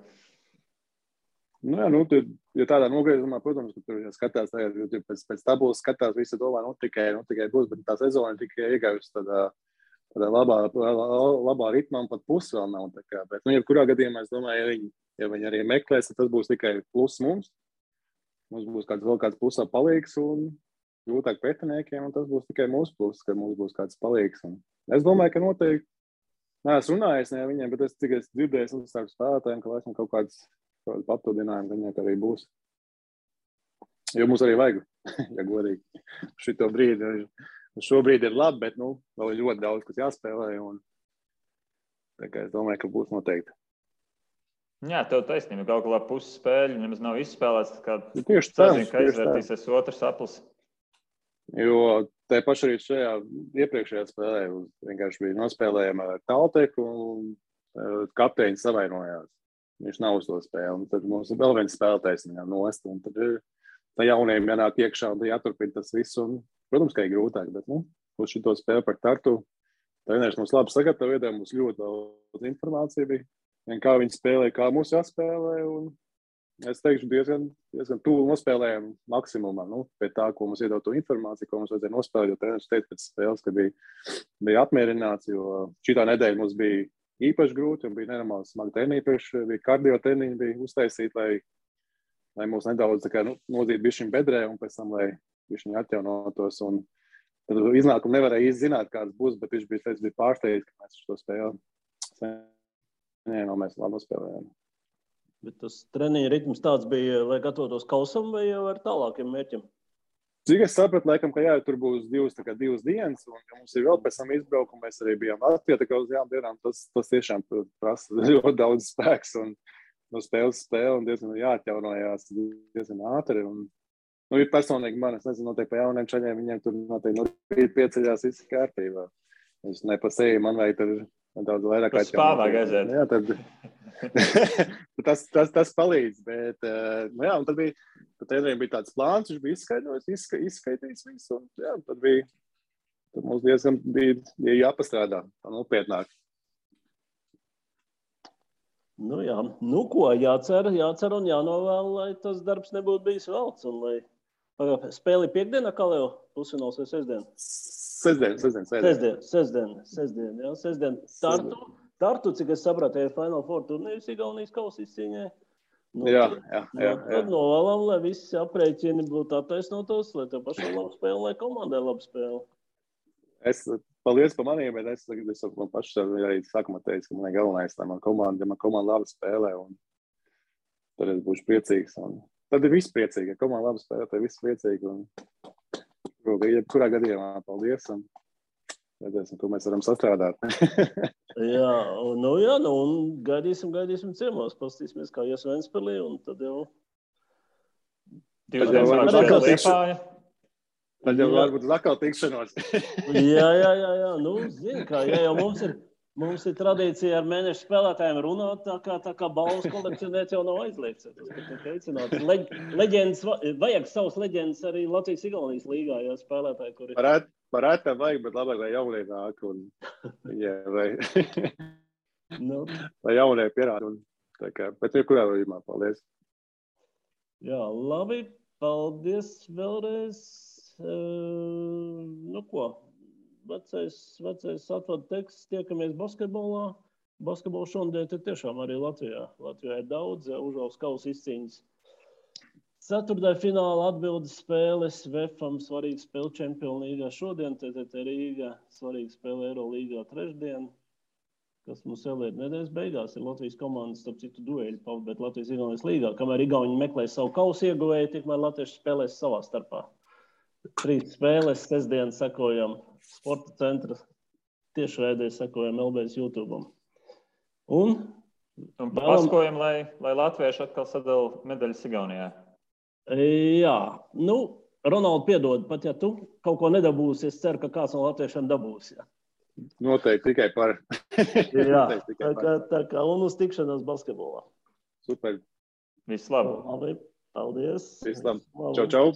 S3: Ja tādā nogriezumā, protams, ka tur skatās tagad, jo pēc tabulas skatās, visi domā, tikai būs, bet tā sezona tikai iegājusi tādā labā ritmā un pat pusi vēl nav. Bet, jebkurā gadījumā, es domāju, ja viņi arī meklēs, tad tas būs tikai plus mums. Mums būs vēl kāds pusā palīgs un grūtāk pretiniekiem, un tas būs tikai mūsu plus, ka mums būs kāds palīgs. Un es domāju, ka noteikti, neesmu runājis ne viņiem, bet es tikai dzirdēju no starp spēlētājiem, ka esmu kaut kāds papildinājumi viņiem arī būs. Jo mums arī vajag, ja godīgi. Šobrīd ir labi, bet vēl ir ļoti daudz, kas jāspēlē. Tā kā es domāju, ka būs noteikti.
S1: Jā, tev taisnība. Galu galā puses spēļu nemaz nav izspēlēts.
S3: Tieši tā.
S1: Ka aizvērtīsies otrs aplis.
S3: Jo te paši arī šajā iepriekšējā spēlē vienkārši bija nospēlējama ar Talteku un kapteiņi savainojās. Viņš nav uz to spēli, un tad mums ir vēl viens spēlētājs viņam nost, un tad ir tā jauniem jānāk iekšā, un tad jāturpina tas viss, un, protams, ka ir grūtāk, bet, uz šito spēli par Tartu, treneris mums labi sagatavoja, mums ļoti daudz informācija bija, un kā viņi spēlē, kā mūs jāspēlē, un es teikšu, diezgan tuvu nospēlējām maksimumā. Pie tā, ko mums iedod to informāciju, ko mums vajadzēja nospēlēt, jo treneris teica pēc spēles, ka bija apmierināts, jo šitā nedēļa mums bija īpaši grūti un bija nenormāli smagi treniņi, bija kardio treniņi, bija uztaisīti, lai mūs nedaudz nodzītu bišķiņ bedrē un pēc tam, lai bišķiņ atjaunotos. Un tad iznākumu nevarēja īsti zināt, kāds būs, bet viņš bija pārsteigts, ka mēs šo spēli mēs labi nospēlējām.
S2: Bet tas treniņa ritms tāds bija, lai gatavotos kausam vai jau ar tālākiem mērķiem?
S3: Cik es sapratu, laikam, ka tur būs divas dienas, un ka mums ir vēl pēc tam izbraukumi, mēs arī bijām Latvijā, tā kā uz jām dienām, tas tiešām prasa ļoti daudz spēks, un no spēles spēle, un diezgan jāatjaunojās diezgan ātri, un ir personīgi man, es nezinu, noteikti pa jauniem čaļiem, viņiem tur noteikti pieceļās viss kārtībā. Es ne pa seju, man vajag tur daudz vairāk
S1: atjaunot. Tas spāvā gaizēt.
S3: Jā, tas palīdz, bet, un tad treneriem bija tāds plāns, viņš bija izskaidrojis visu, un jā, tad mums diezgan bija jāpastrādā, tā nopietnāk.
S2: Jā, ko, jācer un jānovēl, lai tas darbs nebūtu bijis velts, un lai spēli piekdienā, kā jau pusfināls vai sestdien? Sestdien, jā, sestdien. Tartu, cik es sapratu, ir Final Four turnīrs Igaunijas kausa izcīņai.
S3: Jā.
S2: Tad novēlam, lai visi aprēķini būtu attaisnotos, lai tev pašam labi spēle, lai komandai labi spēle.
S3: Paldies par maniem, bet es man pašu arī sākumā teicu, ka man ir galvenais, lai man komanda labi spēlē, un tad es būšu priecīgs. Tad ir viss priecīgi, ja komanda labi spēlē, tad ir viss priecīgi. Kurā gadījumā paldies, un redzēsim, ko mēs varam sastrādāt.
S2: un gaidīsim ciemos, pastīsimies, kā ies Ventspilī, un tad jau...
S3: Tad jau varbūt uz atkal tikšanos.
S2: Jā, zini, kā, jau mums ir tradīcija ar mēnešu spēlētājiem runāt, tā kā balvas kolekcionēt jau nav aizliegts. Leģendas, vajag savas leģendas arī Latvijas-Igaunijas līgā, ja spēlētāji, kuri...
S3: Parēt tam vajag, bet labāk, lai jaunie nāk un lai jaunie pierāda. Bet kurā vajumā, paldies.
S2: Jā, labi, paldies vēlreiz. Ko? Vecais atvadu teksts, tiekamies basketbolā. Basketbola šodien ir tiešām arī Latvijā. Latvijā ir daudz, Užvalks kausa izcīņas. Ceturtdaļa fināla atbildes spēles, VFam svarīga spēle Čempionu līgā šodien, TTT Rīga svarīga spēle Eirolīgā trešdien, kas mums vēl ir nedēļas beigās, ir Latvijas komandas, starp citu dueļi, bet Latvijas-Igaunijas līgā, kamēr Igauni meklē savu kausu ieguvēju, tikmēr latvieši spēlēs savā starpā. 3 spēles, sestdien sekojam Sporta centra tiešraidē, sekojam LBS YouTube. Un
S1: paskojam, lai latvieši atkal sadala medaļas Igaunijā.
S2: Jā, Ronaldu piedod, pat ja tu kaut ko nedabūsi, es ceru, ka kāds no latviešiem dabūs. Jā.
S3: Noteikti tikai par.
S2: Jā, tā kā un uz tikšanos basketbolā.
S3: Super.
S1: Viss labi.
S2: Labi, paldies.
S3: Viss labi. Čau, čau.